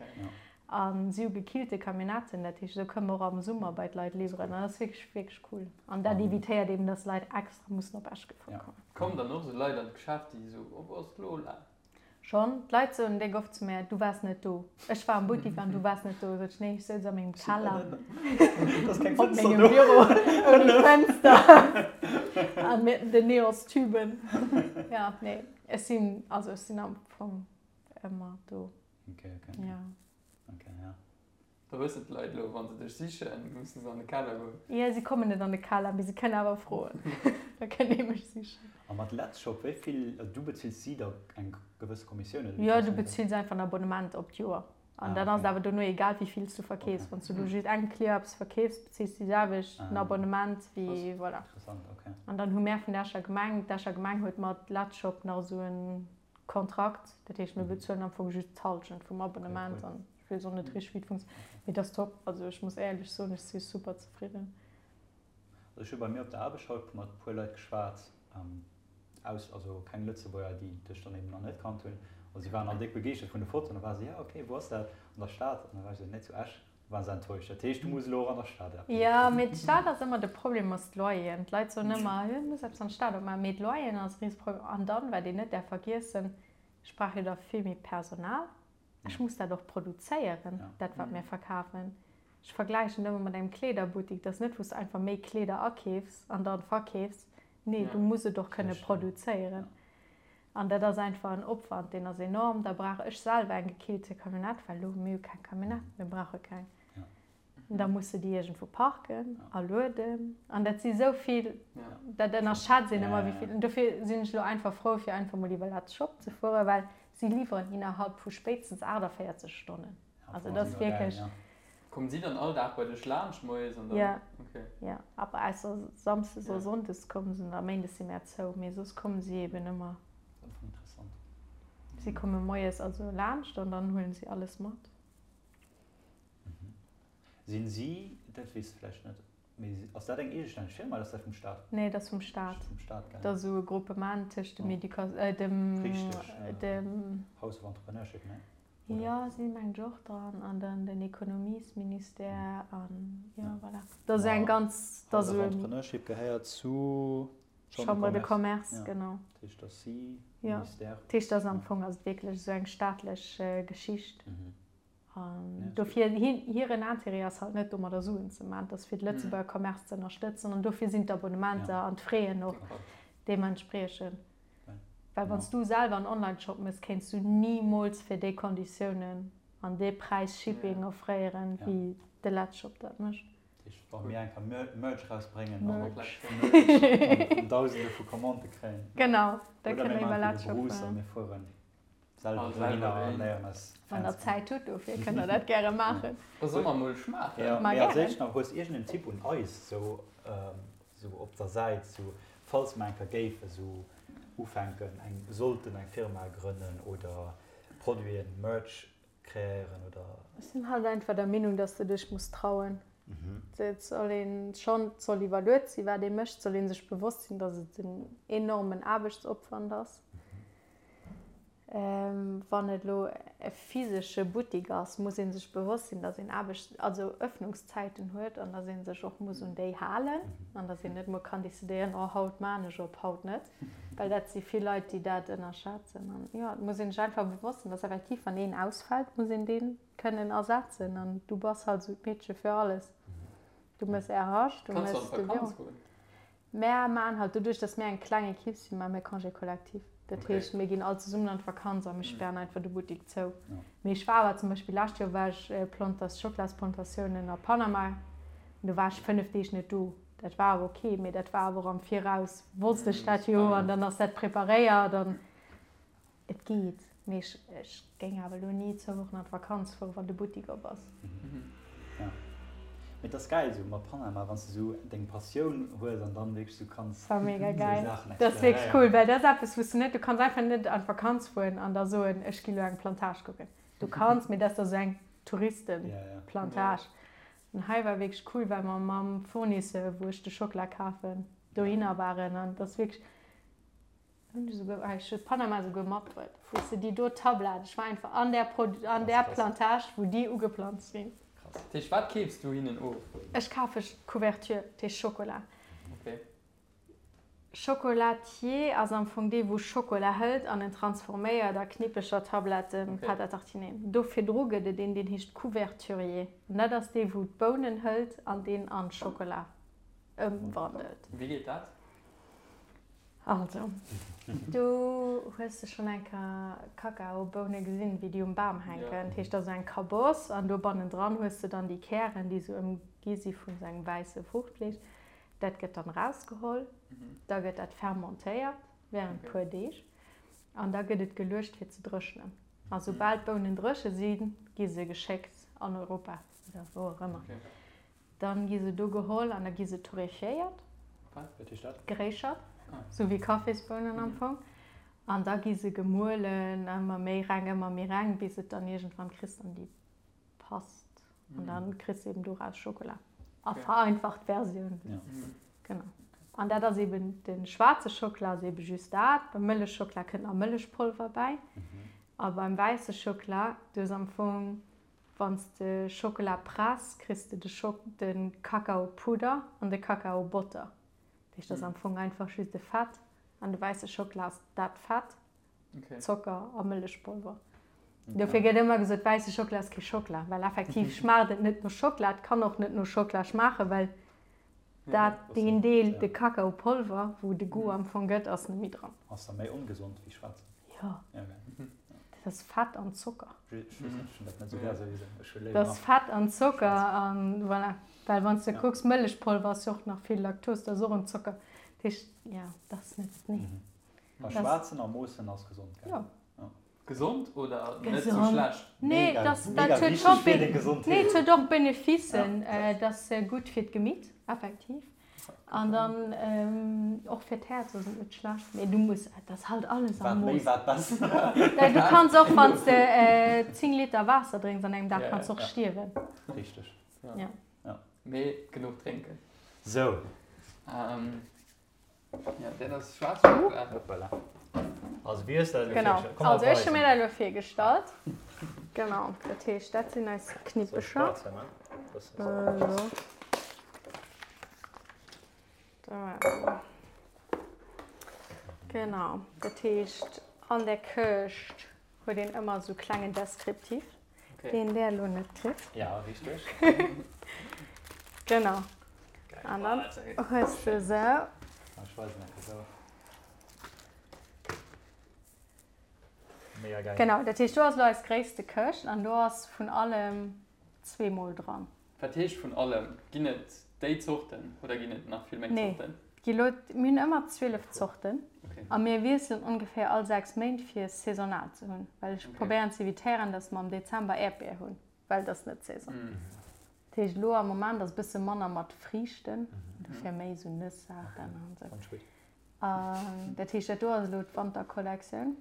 A si hu gekillte Camionnetten, dat heescht, esou kënne mer och am Summer bei d'Leit liwweren an dat ass wierklech, wierklech cool. An dat evitéiert eben, dass Leit extra mussen op Esch gefuer kommen. Kommen dann och esou Leit an d'Geschäft, déi esou, Oh, wou ass d'Lola? Schonn. D'Leit soen déck oft zu mär, Du waars net do. Ech war am Buttik an du waars net do. Sot ech, Nee, ech souz a mengem Keller op mengem Büro ouni Fënster an mit den Neonstüben. Ja, nee, ech sinn, also ech sinn am Fong ëmmer do. Okay, okay. Ja. Okay, ja. Da wëssen d'Leit elo, wa se dech sichen, musse se an de Keller goen. Jo, si kommen net an de Keller, mee si kënnen awer froen. Da kënnt ee mech sichen. A mat Letzshop, wéi vill, also du bezills si da eng gewësse Kommissioun, oder wéi Jo, du funktionéiert dat? bezills einfach en Abonnement op d'Joer. An dann ass et awer dono egal, wéi vill s du verkeefs. Wann s du elo just engem Client eppes verkeefs, bezills du déi selwecht den Abonnement wéi, voilà. Interessant, okay. An dann hu mär vun der Escher Gemeng, d'Escher Gemeng huet mat Letzshop nach esou e Kontrakt, dat heescht, mir bezuelen am Fong just d'Hallschent vum Abonnement an ech weess och net richteg, wéi et funktionéiert, mee et ass top. Also ech muss éierlech soen, ech si super zefridden. Also ech hu bei mir op der Aarbecht haut mat e puer Leit geschwat, aus, also keng Lëtzebuerger, déi dech dann eben nach net kannt hunn, a si waren all déck begeeschtert vun de Fotoen. Da ware se, ja okay, wou ass dat? An der Stad? An da war ech esou, nee, zu Esch. Waren se enttäuscht. Dat heescht, du muss elo och an der Stad eppes Jo, opmaachen. mee d'Stad ass ëmmer de Problem ass d'Loyeren. D'Leit soen ëmmer, jo, du muss eppes an der Stad opmaachen, mee d'Loyeren ass e Riseproblem. An dann, wat een net däerf vergiessen, ech brauch jo da vill méi Personal. Ech muss dat och produzéieren, dat wat mir verkafen. Ech vergläichen ëmmer mat engem Kleederbuttik, dat ass net wou s de einfach méi Kleeder akeefs an dann verkeefs. Nee, du muss et och kënne produzéieren. An dat ass einfach en Opwand, deen ass enorm. Da brauch ech selwer eng gekillte Camionnette, well elo, mir hu keng Camionnette, mir brauche keng. Da muss de déi iergendwou parken a lueden. An dat si sou vill, dat ënnerschätzt een ëmmer, wéi vill. An dofir sinn ech elo einfach frou, fir einfach mol iwwer Let's Shop ze fueren, well si liwweren innerhalb vu spéitstens 48 Stonnen. Also dat ass wierklech. Kommen si dann all Dag bei dech laanscht moies an dann? Ja, ja, aber ausser Samsdes a Sonndes kommen se, a Méindes si mär zou, mee soss kommen si eben ëmmer. Dat ass interessant. Si komme moies also laanscht an dann huelen si alles mat. Sinn si, dat weess de vläicht net, mee ass dat eng eegestänneg Firma oder ass dat vum Staat? Nee, dat ass vum Staat. Vum Staat, gell? Dat ass esou e Groupement tëscht dem Educa-, dem, Richteg, dem. House of Entrepreneurship, ne? Jo, si mengen ech och dran an dann den Ekonomiesministère an jo voilà. Dat ass eng ganz, dat ass esou. Entrepreneurship gehéiert zu Chambre de Commerce, genau. Dat heescht, dass si Ministère. Jo, dat heescht, dass am Fong ass et wierklech esou eng staatlech Geschicht. An dofir, hiren Intérêt ass halt net domadder Suen ze maachen, et ass fir de Lëtzebuerger Commerce ze ënnerstëtzen an dofir sinn d'Abonnementer an d'Fraisen och deementspriechend. Well wann s du selwer en Online-Shop méchs, kéints du nimools fir déi Konditiounen an dee Präis Shipping offréieren, wéi de Letzshop dat mécht. Dat heescht, wa mir eng Kéier Merch rausbréngen an Dausende vu Commandë kréien. Genau, da kënnt der iwwer Letzshop fueren. Selwer dohinner a léieren eis Wann der Zäit hutt dofir, kënnt der dat gäre maachen. Da solle mer mol schmaachen. Jo, mee als éischt nach, hues iergend en Tipp un eis sou sou op der Säit, sou falls mer eng Kéier géife sou ufänken eng sollten eng Firma grënnen oder Produiten, Merch kreéieren oder? Ech sinn halt einfach der Meenung, dass de dech muss trauen. Et soll een schonn, et soll iwwerluet sinn, wat ee mécht, et soll ee sech bewosst sinn, dass et en enormen Aarbechtsopwand ass. Wann et elo e physesche Buttik ass, muss ee sech bewosst sinn, datt een Aarbechts-, also Ëffnungszäiten huet an datt ee sech och muss un déi halen an datt een net emol kann decidéieren, oh haut maan ech op, haut net, well dat si vill Leit, déi dat ënnerschätzen. An jo, et muss ee sech einfach bewosst sinn, datt effektiv, wann een ausfält, muss een dee kënnen ersetzen an du bass halt esou d'Meedche fir alles. Du méchs RH, du méchs de Büro. Mär maan halt, doduerch dass mär eng kleng Equipe sinn, maan mär Congé collectif. Dat heescht, mir ginn all zesummen an d'Vakanz a mir spären einfach de Buttik zou. Mee ech war awer zum Beispill lescht Joer war ech Plantas, Schoklasplantatiounen a Panama an do war ech 5 Deeg net do. Dat war awer ok, mee dat war awer och am Viraus wosst ech dat jo an dann ass dat preparéiert an. Et geet, mee ech ech géing awer elo ni zwou Wochen an d'Vakanz fueren, wann de Buttik op ass. Ja, mee et ass gäil esou mat Panama, wann s de esou deng Passioun hues an dann wierklech esou kanns Dat war mega esou gäil. Saachen Dat ass wierklech cool, exploréieren. well dat ass eppes, wou s de net, du kanns einfach net an d'Vakanz fueren an da soen, ech gi lo eng Plantage kucken. Du kanns, mee dat ass da sou eng Touristenplantage. An hei war wierklech cool, well mer mam Fournisseur, wou ech de Schockela kafen, dohinner waren an et ass wierklech, Hunn ech esouguer, ech hu Panama esouguer matbruet, weess de, déi do Tablett, ech war einfach an där Pro, an där Plantage, wou déi ugeplanzt sinn. Krass. Dat heescht, wat keefs du hinnen of? Ech kafe Couverture, dat heescht Schokola. Okay. Chocolatier ass am Fong dee wou Schokola hëlt an en transforméiert a Knippecher, Tabletten, Pâte à tartiner. Do virdru gëtt et een, deen heescht Couverturier an dat ass dee wou d'Bounen hëlt an deen an Schokola ëmwandelt. Wéi geet dat? Also, du hues de schonn eng Kéier Kakaoboune gesinn, wéi déi um Bam hänken. Dat heescht, dat ass eng Kaboss an do bannendran hues de dann déi Kären, déi esou ëmgi si vun esou engem wäisse Fruuchtfleesch. Dat gëtt dann erausgeholl, da gëtt dat fermentéiert wärend e puer Deeg an da gëtt et geluecht fir ze dréchnen. A soubal d'Bounen dréche sinn, gi se geschéckt an Europa oder wou och ëmmer. Dann gi se do geholl an da gi se torréfiéiert. Wat? Wat heescht dat? Geréischert, sou wéi Kaffisbounen am Fong. An da gi se gemuelen, ëmmer méi reng, ëmmer méi reng, bis et dann iergendwann kriss dann déi Past. An dann kriss de eben doraus Schokola. A vereinfacht Versioun. Genau. An dat ass eben, de schwaarze Schockela ass eben just dat. Beim Mëllechschockela kënnt nach Mëllechpolver bäi. A beim wäisse Schockela, do ass am Fong Wann s de Schockela press, kriss de de Schok de Kakaopudder an de Kakaobotter. Dat heescht, dat ass am Fong einfach just e Fett an de wäisse Schockela ass dat Fett, Zocker a Mëllechpolver. Dofir gëtt ëmmer gesot, wäisse Schockela ass kee Schockela, well effektiv schmaacht et net no Schockela. Et kann och net no Schockela schmaachen, well dat deen Deel, de Kakaopolver, wou de Goût am Fong gëtt, ass net méi dran. Ass da méi ongesond wéi schwaarzen? Jo. Dat ass Fett an Zocker. Ech weess net, ech hunn dat net esou gär souwisou. Ech hu léiwer. Dat ass Fett an Zocker an voilà. Well wann s de kucks, Mëllechpolver ass jo och nach vill Laktos, dat ass och en Zocker. Dat heescht, jo, dat ass net, nee. A schwaarzen a moossen ass gesond, gell? Jo. Gesond oder net sou schlecht? Nee, dat huet scho nee, et huet och Beneficen. Et ass gutt fir d'Gemitt, effektiv. An dann och fir d'Häerz ass et net schlecht. Mee du muss, et ass halt alles am Mooss. Wat méi, wat besser. Du kanns och, wann s de 10 Liter Waasser drénks an engem Dag, kanns och stierwen. Richteg. Ja. Mee genuch drénken. Sou. Ja, dat ass schwaarz Schokola. Hoppala. Also wéi hues de dat elo Genau. virgestallt? Komm, Also ech hu weisen. mir dat elo virgestallt. Genau, dat heescht, dat sinn eis Soll ech Knippecher. Plaz hei man? Bëssen So. esou. Da. Genau, dat heescht, an der Këscht huet een ëmmer esou klengen Descriptif. Deen där elo net kritt. Ja, richteg. Genau. An dann hues de esou. Ech weisen enke sou. Mega geil. Genau, dat heescht do ass elo eis gréisste Këscht an do ass vun allem zweemol dran. Wat heescht vun allem? Ginn et déi Zorten oder ginn et nach vill méi Zorten? Nee, gi lo, mir hunn ëmmer 12 Zorten a mir wiesselen ongeféier all 6 Méint fir saisonal ze hunn, well ech probéieren z'evitéieren, dass mer am Dezember Äerdbier hunn, well et ass net Saison. Dat heescht elo am Moment ass e bësse manner mat Friichten, dofir méi esou Nëss-Saachen an esou. An dat heescht dat do ass elo d'Wanterkollektioun.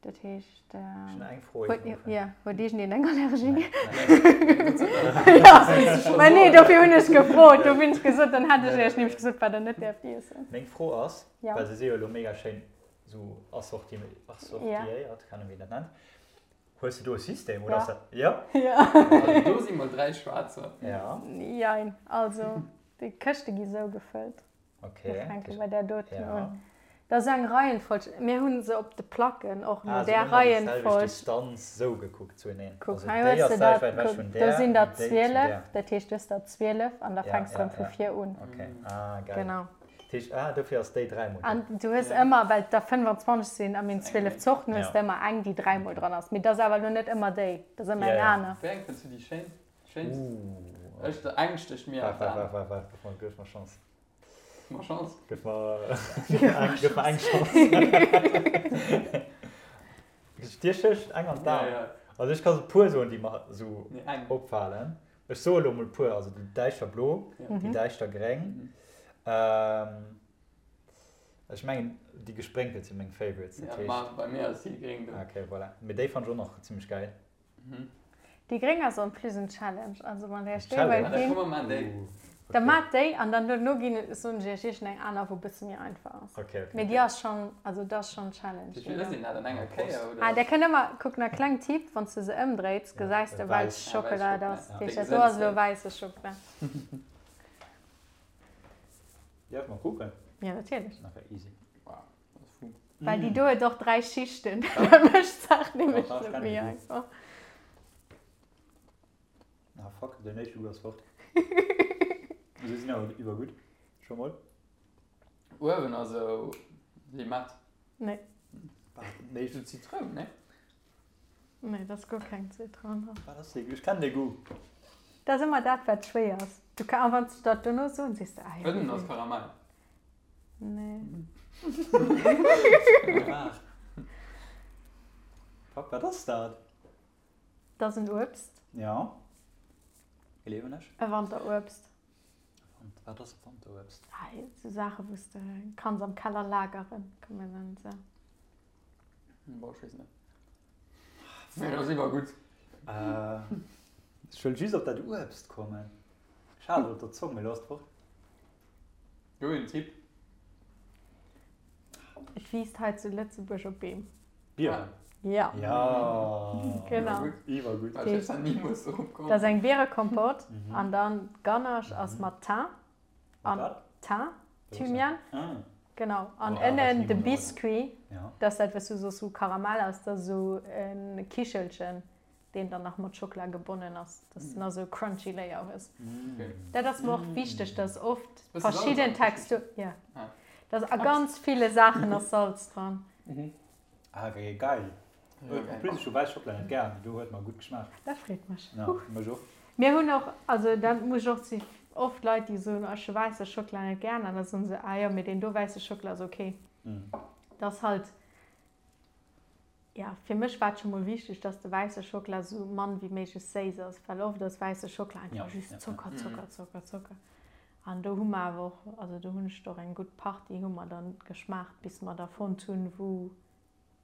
Dat heescht. Ech hunn eng Fro. Jo, huet iergendeen eng Allergie? Mä nee, dofir hunn ech gefrot. Dofir hunn ech gesot, dann hätt ech iech nämlech gesot, wat der net däerft iessen. Meng Fro ass, well se si jo elo mega schéin esou assortiéiert, keng Ahnung wéi een dat nennt, hues de do e System oder ass dat? Jo? Jo. Also do si mol 3 schwaarzer. Jo. Jein, also déi Këschte gi sou gefëllt. Okay. Mir fänke bei där doten un. Dat ass eng Reihenfolg. Mir hu se op de Placken och no där Reihenfolg. Distanz sou gekuckt zueneen. Kuck, hei hues de dat. Kuck, do sinn der 12. Dat heescht, du hues der 12 an da fänks de erëm vu vir un. Okay. Ah, geil. Genau. Dat heescht, ah, dofir ass déi dräimol do. An du hues ëmmer, well et der 25 sinn a mir hunn 12 Zorten, hues de ëmmer eng, déi dräimol dran ass. Mee dat ass awer elo net ëmmer déi, dat ass ëmmer eng aner. Wéi eng fënns du déi schéin? Schéinst? Ech, eng stécht mir an d'An. Waart, waart, waart, waart, gëff mer Chance. Gëff mer Chance. Gëff mer, gëff mer eng Chance. Dir stécht eng an d'An? Ja, ja. Also ech ka sou puer soen, déi mer sou Nee, eng. opfalen. Ech soe lo mol puer, also déi däischter blo, déi däischter gréng. Ech mengen déi gesprénkelt si meng Favorites, dat Ja, heescht. ma bei mir ass déi gréng do. Okay, voilà. Mee déi fannt ech och nach zimmlech gäil. Déi gréng ass en plus en Challenge, also wann der iech déi Challenge? wëllt ginn, da maacht déi an dann duerno ginn soen ech iech iergend eng aner wou bësse méi einfach ass. Mee déi ass schonn, also dat ass schonn Challenge. Wéi vill ass een dat an enger Kéier oder? Ah där kënnt ëmmer, kuck nach kleng Tipp, wann s de se ëmdréits gesäis de welch Schockela et ass. Dat heescht dat do ass elo wäisse Schockela. Däerf mer kucken? Jo natierlech. Okay, easy. Well déi do huet och 3 Schichten, dat mécht d'Saach nämlech net méi einfach. Ah fuck, den éischte Goût ass fort. Se sinn awer iwwergutt, scho mol. Uewen ass esou Limett. Nee. Nee. Esou Zitroun, nee? Nee, dat ass guer keng Zitroun dran. Wat ass dee Goût? Ech kennen dee Goût. Dat ass ëmmer dat, wat schwéier ass. Du ka, a wann s de dat dono soen, sees de, ah jo. Ënnen ass Karamell. Nee. Fuck, wat ass dat? Dat ass en Uebst. Ja. Gleewen ech. E Wanteruebst. Wat ass e Wanteruebst? Ah, esou Saache wou s de kanns am Keller lageren, kann man dann esou. Boah, ech weess net. Mee dat ass iwwer gutt. Ech wëll just op dat Uebst kommen. Ech hat et op der Zong, mee lo ass et fort. Do een Tipp. Et wiisst hei zu Lëtzebuerg op Beem. Bieren? Ja. Ja. Genau. Iwwergutt. Ech hätt da nimools drop komm. Dat ass eng Bierekompott an dann d'Ganache ass mat Thym an Thym, Thymian. Genau. An ënnen de Biscuit, dat ass dat wat s du soss, wou Karamell ass, dat ass esou e Kichelchen. deen dann nach mat Schockela gebonnen ass, dass du nach esou e crunchy Layer hues. Dat ass mer och wichteg, dass oft verschidden Texturen, jo, dass a ganz ville Saachen ass Salz dran. Ah okay, geil. En plus ech hu wäiss Schockela net gär, mee do huet mer gutt geschmaacht. Dat freet mech. Ja, mech och. Mir hunn och, also dat muss ech och si oft Leit déi soen, ech hu wäisse Schockela net gär, an da soen se, ah jo, mee deen do wäisse Schockela ass ok. Dat ass halt, Ja, fir mech war et scho mol wichteg, dass de wäisse Schockela sou mann wéi méiglech séiss ass, well oft ass wäisse Schockela einfach just Zocker, Zocker, Zocker, Zocker. An do hu mer awer och, also do hunn ech och eng gutt Partie hu mer dann geschmaacht, bis mer der fonnt hunn, wou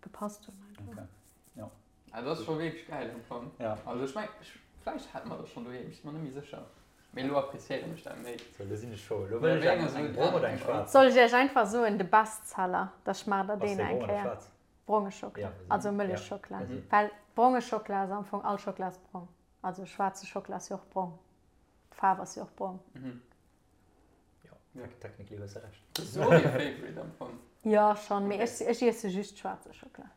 gepasst hunn einfach. Okay, jo. Ah, dat ass scho wierklech gäil am Fong. Ja. Also ech meng, vläicht hat mer dat schonn doheem, ech si mer net méi sécher. Mee elo appreciéieren ech dat méi. Sou, elo sinn ech scho. Elo wëll ech eng, eng brong oder eng schwaarz. Soll ech iech einfach soen, de Bestseller, da schmaacht der Ass deen dee eng brong oder Kéier. schwaarz? Bronge Schockela, also Mëllechschockela, well bronge Schockela ass am Fong, all Schockela ass brong, also schwaarze Schockela ass jo och brong, d'Faarf ass jo och brong. Jo, technically hues de Recht. Dat ass och dee Favorite am Fong. Jo, schonn, mee ech ech iesse just schwaarze Schockela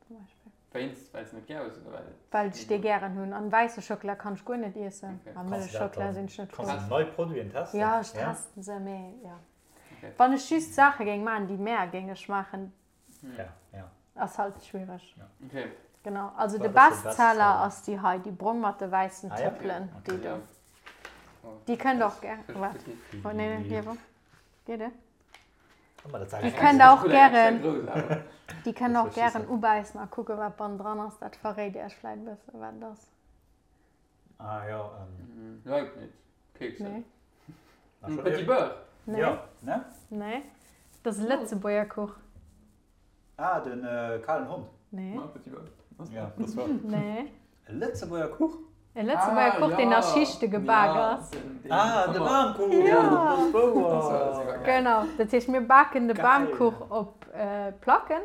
zum Beispill. Wéinst, well s net gär hues oder well et. Well ech dee gären hunn. An wäisse Schockela kann ech guer net iessen. A Mëllechschockela sinn ech net frou. Kanns du nei Produiten testen? Jo, ech testen se, mee jo. Wann ech just Saache géing maachen, déi mär géing ech maachen, ass halt schwiereg. Genau, also de Bestseller ass déi hei, déi brong mat de wäissen Tëppelen, déi do. Déi kënnt och gär, waart, oh nee, nee, hier, geet et? Déi kënnt der och gären, déi kënnt der och gären ubäissen a kucken, wat bannendran ass. Dat verréit Iech vläit e bëssen, wat et ass. Ah jo. Leuk net. Kekse. Nee. Petit Beurre. Nee. Jo, ne? Nee. Dat ass e Lëtzebuerger Kuch. Ah, den kalen Hond. Nee. Ma Petit Beurre. Ja, dat war. Nee. E Lëtzebuerger Kuch? E Lëtzebuerger Kuch, deen a Schichte gebak ass. Ah, de Bamkuch! Jo, dat ass wouer! Genau, dat heescht, mir baken de Bamkuch op Placken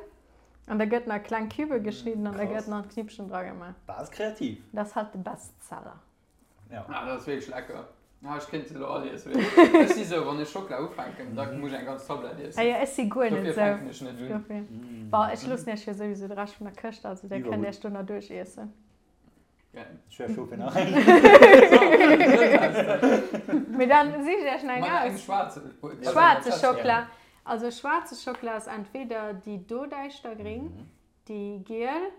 an da gëtt en a kleng Cubë geschnidden an da gëtt en an d'Knippchen dragemaach. Dat ass kreativ. Dat ass halt de Bestseller. Ja. Ah, dat ass wierklech lecker. Ah, ech kéint se elo all iessen. Ech si sou, wann ech Schockela ufänken, da muss ech eng ganz Tablett iessen. Ah jo, ech si guer net Dofir sou. fänken ech net un. Dofir. Bon, ech loossen iech jo souwisou de Rescht vun der Këscht, also dir kënnt iech do nach duerch iessen. Geil. Ech wär scho fir nach eng. Mee dann sich iech nach eng Mat engem aus. schwaarze. Schwaarze Schockela. Also schwaarze Schockela ass entweder déi do däischtergring, déi giel,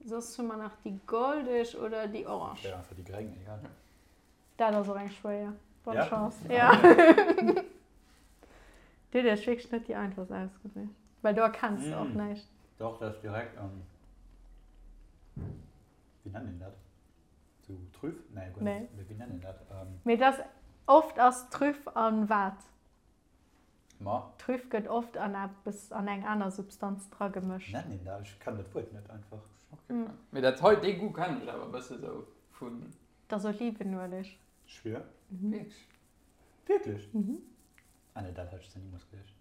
soss hu mer nach déi goldeg oder déi orange. Ech wär einfach déi gréng, egal. Dat ass och eng schwéier. Bonne Ja? Chance. Ja. Du huet iech wierklech net déi einfachst ausgesicht. Well do erkenns de och Mm. näischt. Doch, dat ass direkt am. Wéi nennt een dat? Sou Trüff? Nee, guer Nee. net. Mee wéi nennt een dat? Ähm, Mee dat ass, oft ass Trüff an wat? Ma, Trüff gëtt oft an eppes, an eng aner Substanz dragemëscht. nennt een dat? Ech kennen dat Wuert net einfach. Okay. Mee dat hei, dee Goût kennen ech awer e bësse sou vun. Dat ass Olivenueleg. Schwier? Wierklech? Wierklech? Mhm. Ah nee, dat hätt ech nimools geduecht.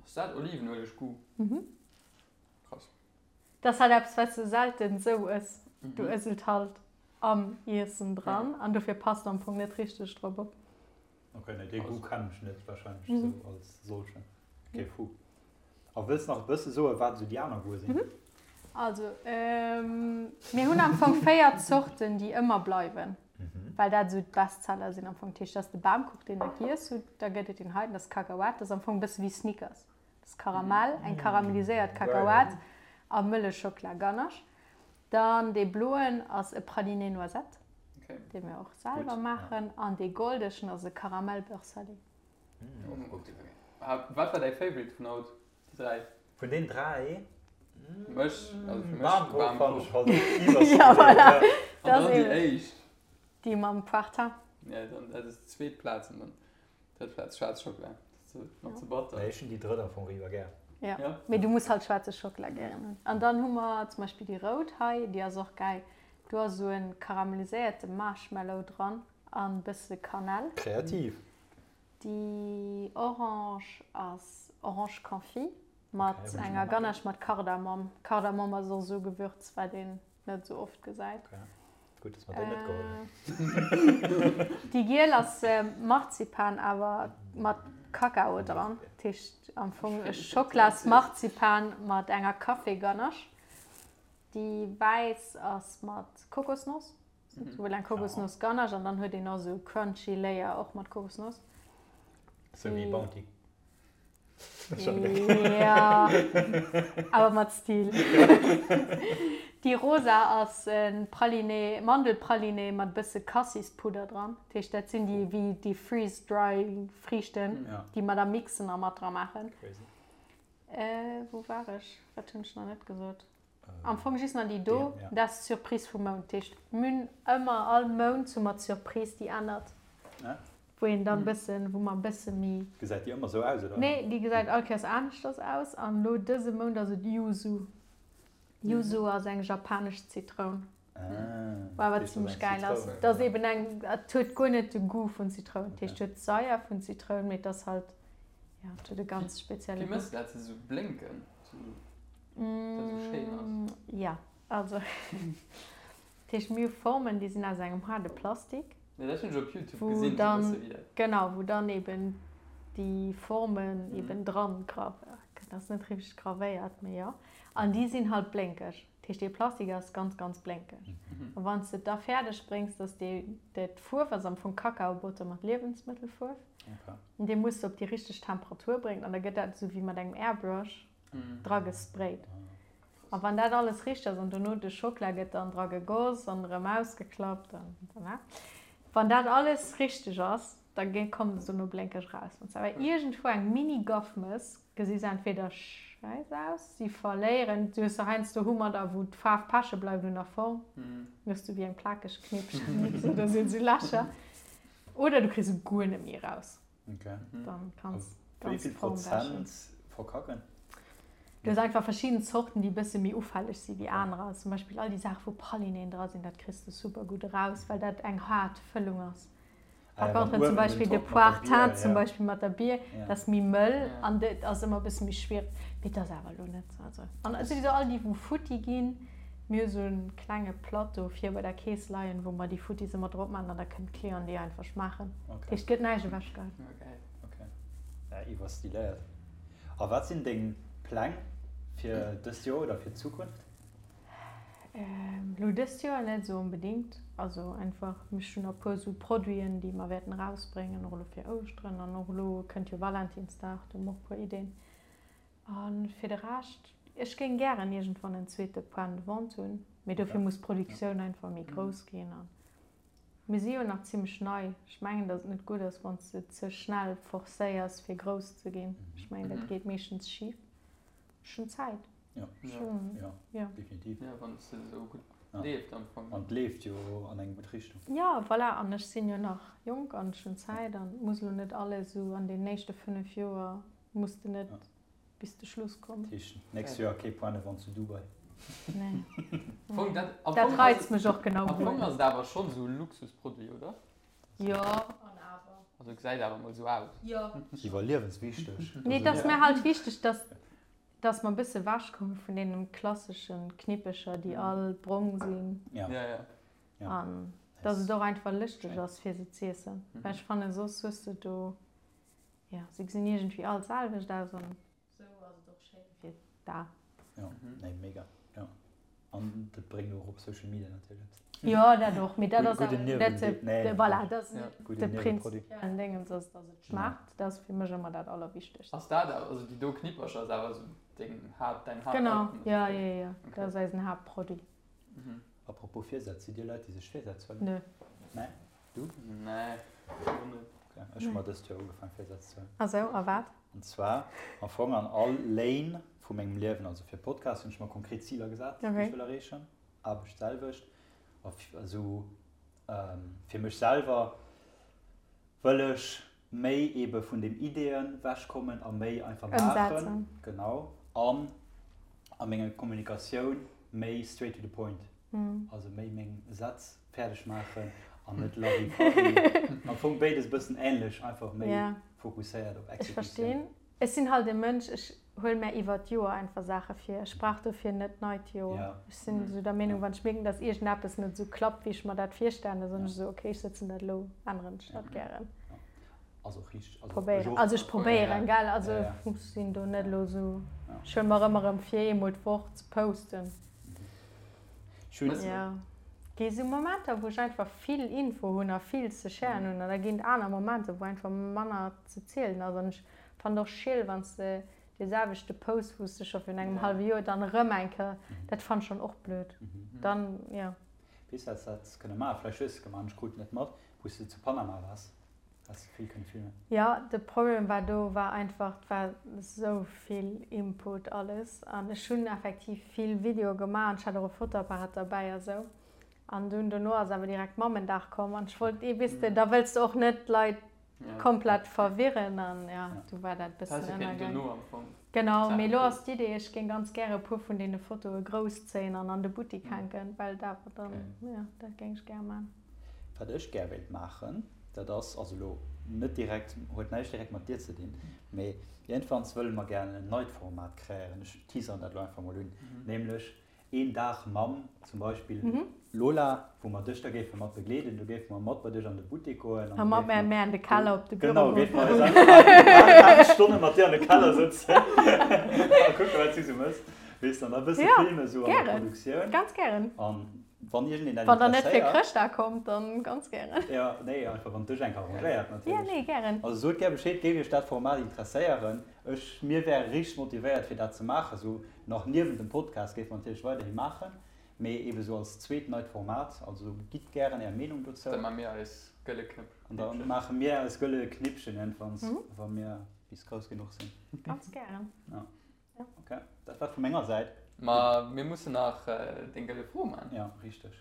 Ass dat Olivenueleg-Goût? Mhm. Krass. Dat ass halt eppes, wat s de selten esou ëss. Du ëss et halt am Iessen dran an dofir passt am Fong net richteg drop op. Ok, nee, dee Goût kennen ech net wahrscheinlech esou als solchen. Ok, fou. A wëlls nach e bësse soen, wat esou déi aner Goûte sinn? Also, mir hunn am Fong 4 Zorten, déi ëmmer bleiwen, well dat esou d'Bestseller sinn am Fong. Dat heescht, dat ass de Bamkuch, deen der giess hutt, da gëtt et deen heiten, dat ass Kakaoat, dat ass am Fong e bësse wéi Snickers. Dat ass Karamell, eng karamelliséiert Kakaoat a Mëllechschockela-Ganache. Dann dee bloen ass e Praliné Noisette, dee mir och selwer maachen, an dee goldegen ass e Karamell-Beurre salé. Wat war däi Favorite vun haut, déi 3? Vun den 3? Mech, also fir mech Bamkuch fand ech halt Ja, voilà. An dann déi éischt. Déi mam Poire-Thym. Ja, dann dat ass d'zweet Plaz an dann drëtt Plaz schwaarz Schockela. Dat ass nach ze batter. Nee, ech hunn déi drëtt am Fong iwwer gär. Ja, mee du muss halt schwaarze Schockela gären hunn. An dann hu mer zum Beispill déi rout hei, déi ass och gäil. Do ass esou e karamelliséierte Marshmallow dran an e bësse Kanell. Kreativ. Déi orange ass Orange Confit mat enger Ganache mat Kardamom. Kardamom ass och esou e Gewürz, wat een net esou oft gesäit. Gutt, dass mer déi net geholl hunn. Déi giel ass Marzipan awer mat Kakao dran. Dat heescht am Fong e Schocklas-Marzipan mat enger Café-Ganache. Déi wäiss ass mat Kokosnoss. Souwuel eng Kokosnoss Ganache an dann huet een och esou crunchy Layer och mat Kokosnoss. Sou wéi Bounty. Ja, awer mat Stil. Déi rosa ass e Praliné, Mandelpraliné mat e bësse Cassispudder dran. Dat heescht, dat sinn déi wéi déi freeze dry Friichten, déi mer da mixen a mat dra maachen. Wou war ech? Wat hunn ech nach net gesot? Am Fong just nach déi do, dat ass d'Surprise vum Mount. Dat heescht, mir hunn ëmmer all Mount hu mer d'Surprise, déi ännert, wou een dann e bëssen, wou mer e bësse méi. Gesäit déi ëmmer esou aus, oder? Nee, déi gesäit all Kéiers aneschters aus. An elo dëse Mount ass et Yuzu. Yuzu ass eng japanesch Zitroun, wou awer zimmlech gäil ass. Dat ass eben eng, et huet guer net de Goût vun Zitroun. Dat heescht, et huet d'Saier vun Zitroun, mee et ass halt, jo, et huet e ganz spezielle Wéi Goût. mëss de dat, se esou blénken? Dat esou schéin ass. Jo, also dat heescht mir hu Formen, déi sinn aus engem haarde Plastik. Jo, dat hunn ech op Youtube wou gesinn, dann, sou bësse wéi dat. Genau, wou dann eben déi Formen eben dran gravéiert. Dat ass net richteg gravéiert, mee jo. An déi sinn halt blénkeg. Dat heescht, dee Plastik ass ganz, ganz blénkeg. A wann s de et da fäerdeg bréngs, dass dee, dat Fuerf ass am Fong Kakaobotter mat Liewensmëttelfuerf, an dee muss de op déi richteg Temperatur bréngen an da gëtt dat esou wéi mat engem Airbrush dra gesprayt. A wann dat alles richteg ass an dono de Schokla gëtt dann dra gegoss an erëm ausgeklappt an voilà. Wann dat alles richteg ass, da kommt es dono blénkeg raus. Wann s de awer iergendwou eng Mini-Gaff mëss, gesi se entweder schäiss aus, si verléieren, du hues se heiansdo hu mer da wou d'Faarf peche bleift un der Form, dann hues du wéi eng plakeg Knippchen oder sinn esou Lächer, oder du kriss se guer net méi eraus. Dann kanns Wéi vill Prozent verkacken? Du hues einfach verschidden Zorten, déi e bësse méi ufälleg si wéi anerer. Zum Beispill all déi Saache wou Pralinéen dra sinn, dat kriss de super gutt eraus, well dat eng haart Fëllung ass. Par contre zum Beispill de Poire teinte zum Beispill mat der Bier, dat ass méi mëll an dat ass ëmmer e bësse méi schwiereg. Mee dat ass awer elo net esou. Also an souwisou all déi wou futti ginn, mir hu sou e klenge Plateau vir bei der Kees leien, wou mer déi Futtis ëmmer drop maachen an da kënnen d'Clienten déi einfach schmaachen. Dat heescht, et gëtt näischt ewechgeheit. Ok, ja iwwerstiléiert. A wat sinn deng Pläng fir dëst Joer oder fir d'Zukunft? Elo dëst Joer net esou onbedéngt. Also einfach, ech hunn nach e puer esou Produiten, déi mer wäerten erausbréngen, och elo fir Ouschteren an och elo kënnt jo Valentinsdag, do hu mer och e puer Ideen. A fir de Rescht, ech géing gären iergendwann en zweete Point de vente hunn, mee dofir muss d'Produktioun einfach méi grouss ginn. A mir si jo nach zimmlech nei. Ech mengen, datt et net gutt ass, wann s de ze schnell forcéiers, fir grouss ze ginn. Ech mengen, dat geet meeschtens schif. Ech hunn Zäit. Ja, ja, ja, definitiv. Ja, wann es esou gutt leeft am Fong. An et leeft jo an eng gutt Richtung. Ja, voilà, an ech sinn jo nach jonk an ech hunn Zäit an et muss elo net alles esou an den éischte 5 Joer muss de net bis de Schluss kommen. Dat heescht, nächst Joer kee Point de vente zu Dubai? Nee. Fong, dat, am Dat Fong ass reizt mech och genau Am Fong ass et awer schonn esou e Luxusproduit, oder? Jo, an awer. Also gesäit awer mol esou aus. Jo. Iwwerliewenswichteg. Nee, et ass mir halt wichteg, dass Dass mer e bësse wech komme vun deenen klasseschen Knippecher, déi all brong sinn. Ja. Ja, ja. An dass et och einfach lëschteg ass, fir se z'iessen. Well ech fannen, soss hues de do, jo, se gesinn iergendwéi all d'selwecht aus an sou ass et och schéin fir d'A. Jo, nee, mega, jo. An dat bréngt och op Social Media natierlech eppes. Jo, dat och, mee dat ass awer net de, voilà, dat ass net de prinzipiellen Déngens, ass dass et schmaacht, dat ass fir mech ëmmer dat Allerwichtegst. Ass dat awer, also déi do Knippercher ass awer esou deng Haapt, däin Haapt. Genau, jo, jo, jo, dat ass eisen Haaptproduit. Apropos Virsätz, sidd Dir Leit, déi sech Virsätz huelen? Nö. Nee? Du? Nee, och net. Okay, ech hu mer dëst Joer ugefaang Virsätz ze huelen. Ah sou, a wat? An zwar am Fong an all Lane vu mengem Liewen, also fir Podcast hunn ech mer konkret Ziler gesat, déi ech wëll erreechen, Aarbecht d'selwecht, a esou fir mech selwer wëll ech méi ebe vun den Ideeën wechkommen a méi einfach maachen. Genau. An a menger Kommunikatioun méi straight to the point. Also méi meng Sätz fäerdeg maachen an net lovey-dovey. Am Fong béides e bëssen änlech, einfach méi fokusséiert op Exekutioun. Ech verstinn. Ech sinn halt e Mënsch, ech huele mär iwwert d'Joer einfach Saache vir. Ech brauch dofir net d'neit Joer. Ech sinn esou der Meenung, wann ech mierken, dass iergendeppes net esou klappt, wéi ech mer dat virstellen, da soen ech esou, okay, ech sëtzen dat elo, änneren ech dat gären. Ass och richteg. Also ech och. Also ech probéieren, gell. Also ech sinn do net elo esou, ech huele mer ëmmer erëm vir, eemol d'Woch ze posten. Jo, gi sou Momenter, wou ech einfach vill Info hunn a vill ze sharen hunn an da ginn et aner Momenter, wou einfach manner ze zielen ass. An ech fannen et och schiel, wann s de dee selwechte Post, wou s de scho virun engem hallwe Joer dann erëm eng Kéier, dat fannen ech dann och blöd. Dann, jo. Weess wat s de häss kënne maachen? Vläicht hues de et gemaach an ech krut et net mat, wou s de zu Panama waars. Has de vill kënne filmen? Jo, de Problem war do war einfach, et war esou vill Input alles an ech hunn effektiv vill Videoe gemaach an ech hat och e Fotoapparat derbäi a sou. An dunn dono ass awer direkt Mammendag komm an ech wollt, weess de, da wëlls de och net d'Leit komplett verwirren an jo, du war dat e bëssen ënnergaang. Genau, mee elo ass d'Idee, ech géing ganz gäre e puer vun deene Fotoe grousszéien an an de Buttik hänken, well dat awer dann, jo, dat géing ech gär man. Wat ech gär wéilt maachen, dat ass, also elo net direkt, huet näischt direkt mat dir ze dinn, mee iergendwanns wëlle mer gären en neit Format kreéieren, ech teaseren dat elo einfach mol un, nämlech. Een Dag mam zum Beispill Lola, wou mer dech da géife mat begleeden. Do géife mer mat bei dech an de Buttek goen. A mat mär mär an de Keller op de Büro goen. Genau, géife mer eis einfach 8 Stonne mat dir an de Keller sëtzen a kucken, wat s du sou méchs. Weess de, an da e bësse filmen sou an der Produktioun. Gären, ganz gären. An wann iergendeen dat interesséiert. Wann der net fir Chrëschtdag kommt, dann ganz gären. Jo, nee, einfach wann et dech eng arrangéiert natierlech. Jo, nee, gären. Also sot gär Bescheed, géif iech dat Format interesséieren. Ech, mir wäre richteg motivéiert fir dat ze maachen, sou nach niewent dem Podcast géife mer natierlech weiderhi maachen, mee ebe sou als zweet neit Format. Also gitt gären är Meenung dozou. Da maache mir eis gëlle Knëppchen. An da maache mir eis gëlle Knippchen iergendwanns, wa mir bis grouss genuch sinn. Ganz gären. Ja. Ok, dat war et vu menger Säit. Ma mir mussen nach deng gëlle Fro maachen. Ja, richteg.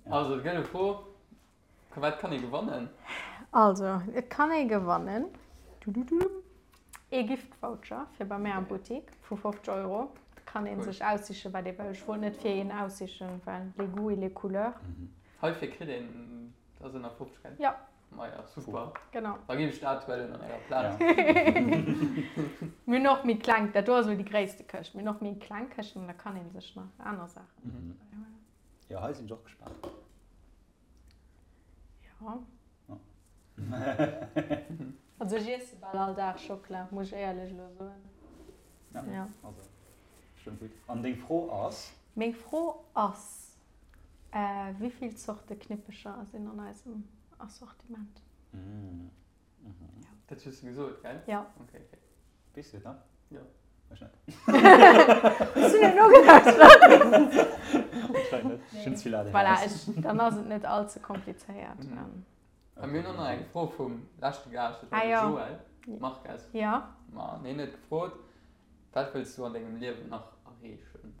Also d'gëlle Fro, Wat kann ee gewannen? Also et kann ee gewannen ee Gift-Voucher fir bei mär am Buttik vu 50 Euro. Et kann ee sech aussichen, wat ee wëll. Ech wollt net fir een aussichen, well les goûts et les couleurs. Heifir kritt een dat ënner 50, gell? Jo. Maja, super. Genau. Da ginn ech dat huelen an ärer Plaz. Mir hunn och méi kleng, dat do ass elo déi gréisste Këscht. Mir hunn och méi kleng Këschten, da kann ee sech nach aner Saachen bäihuelen. Jo, hei sinn ech och gespaant. Jo. Also ech iesse bal all Dag Schockela, muss ech éierlech elo soen. Ja, ja. Also, stëmmt gutt. An deng Fro ass? Meng Fro ass, Wéi vill Zorte Knippecher sinn an eisem Assortiment? Dat hues du gesot, gell? Ja. Okay, okay. Weess du et nach? Jo. Ech net. Hues du net nogelauschtert? Anscheinend net. Ech hunn ze vill ADHS. Voilà, ech, dann ass et net all ze komplizéiert. A mir hunn och nach eng Fro vum leschte Gaascht, dat war de Joël Marques. Ja. Ma hien huet gefrot, Wat wëlls du an dengem Liewen nach erreechen?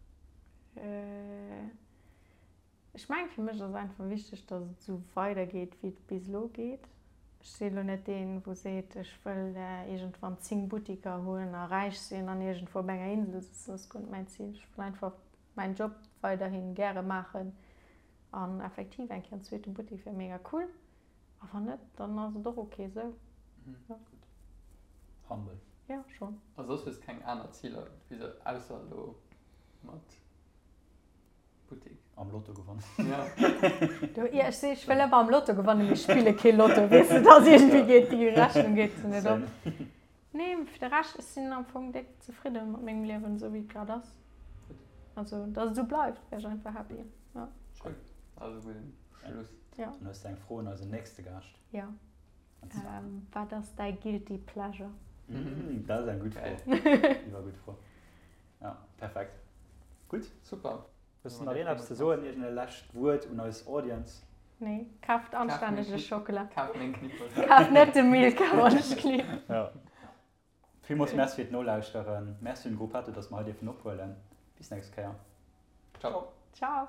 Ech mengen, fir mech ass einfach wichteg, datt et esou weidergeet, wéi et bis elo geet. Ech si elo net deen, wou seet, ech wëll iergendwann 10 Buttiker hunn a räich sinn an iergendwou op enger Insel sëtzen. Dat ass guer net mäin Zil. Ech wëll einfach mäin Job weiderhi gäre maachen an effektiv eng Kéier en zweete Buttik wär mega cool. A wann net, dann ass et och ok esou. Gutt. Humble. Jo, schonn. A soss hues keng aner Ziler, ausser elo mat Buttik. Am Lotto gewonnen. Ja. Du, ja, ech si, ech wëll ëmmer am Lotto gewannen, mee ech spille kee Lotto, weess de, dass iergendwéi geet déi Rechnung geet se net op. Nee, fir de Rescht, ech sinn am Fong déck zefridde mat mengem Liewen, esou wéi et grad ass. Also, dass et esou bleift, wär ech einfach happy, ja. Cool, also gudden Schluss. Ja. Dann hues de eng Fro un eisen nächste Gaascht. Ja. Wat ass däi guilty pleasure? Dat ass eng gutt Fro. Iwwer gutt Fro. Ja, perfekt. Gutt. Super. Hues de nach een eppes ze soen, iergend e lescht Wuert un eis Audience? Nee, kaaft anstännege Schockela. Kaaft meng Knippel. Kaaft net de Milka, wann ech klipp. Ja. Villmools Merci fir d'Nolauschteren. Merci un Gruppetto, dass mer hei dierfen ophuelen. Bis nächst Kéier. Ciao. Ciao.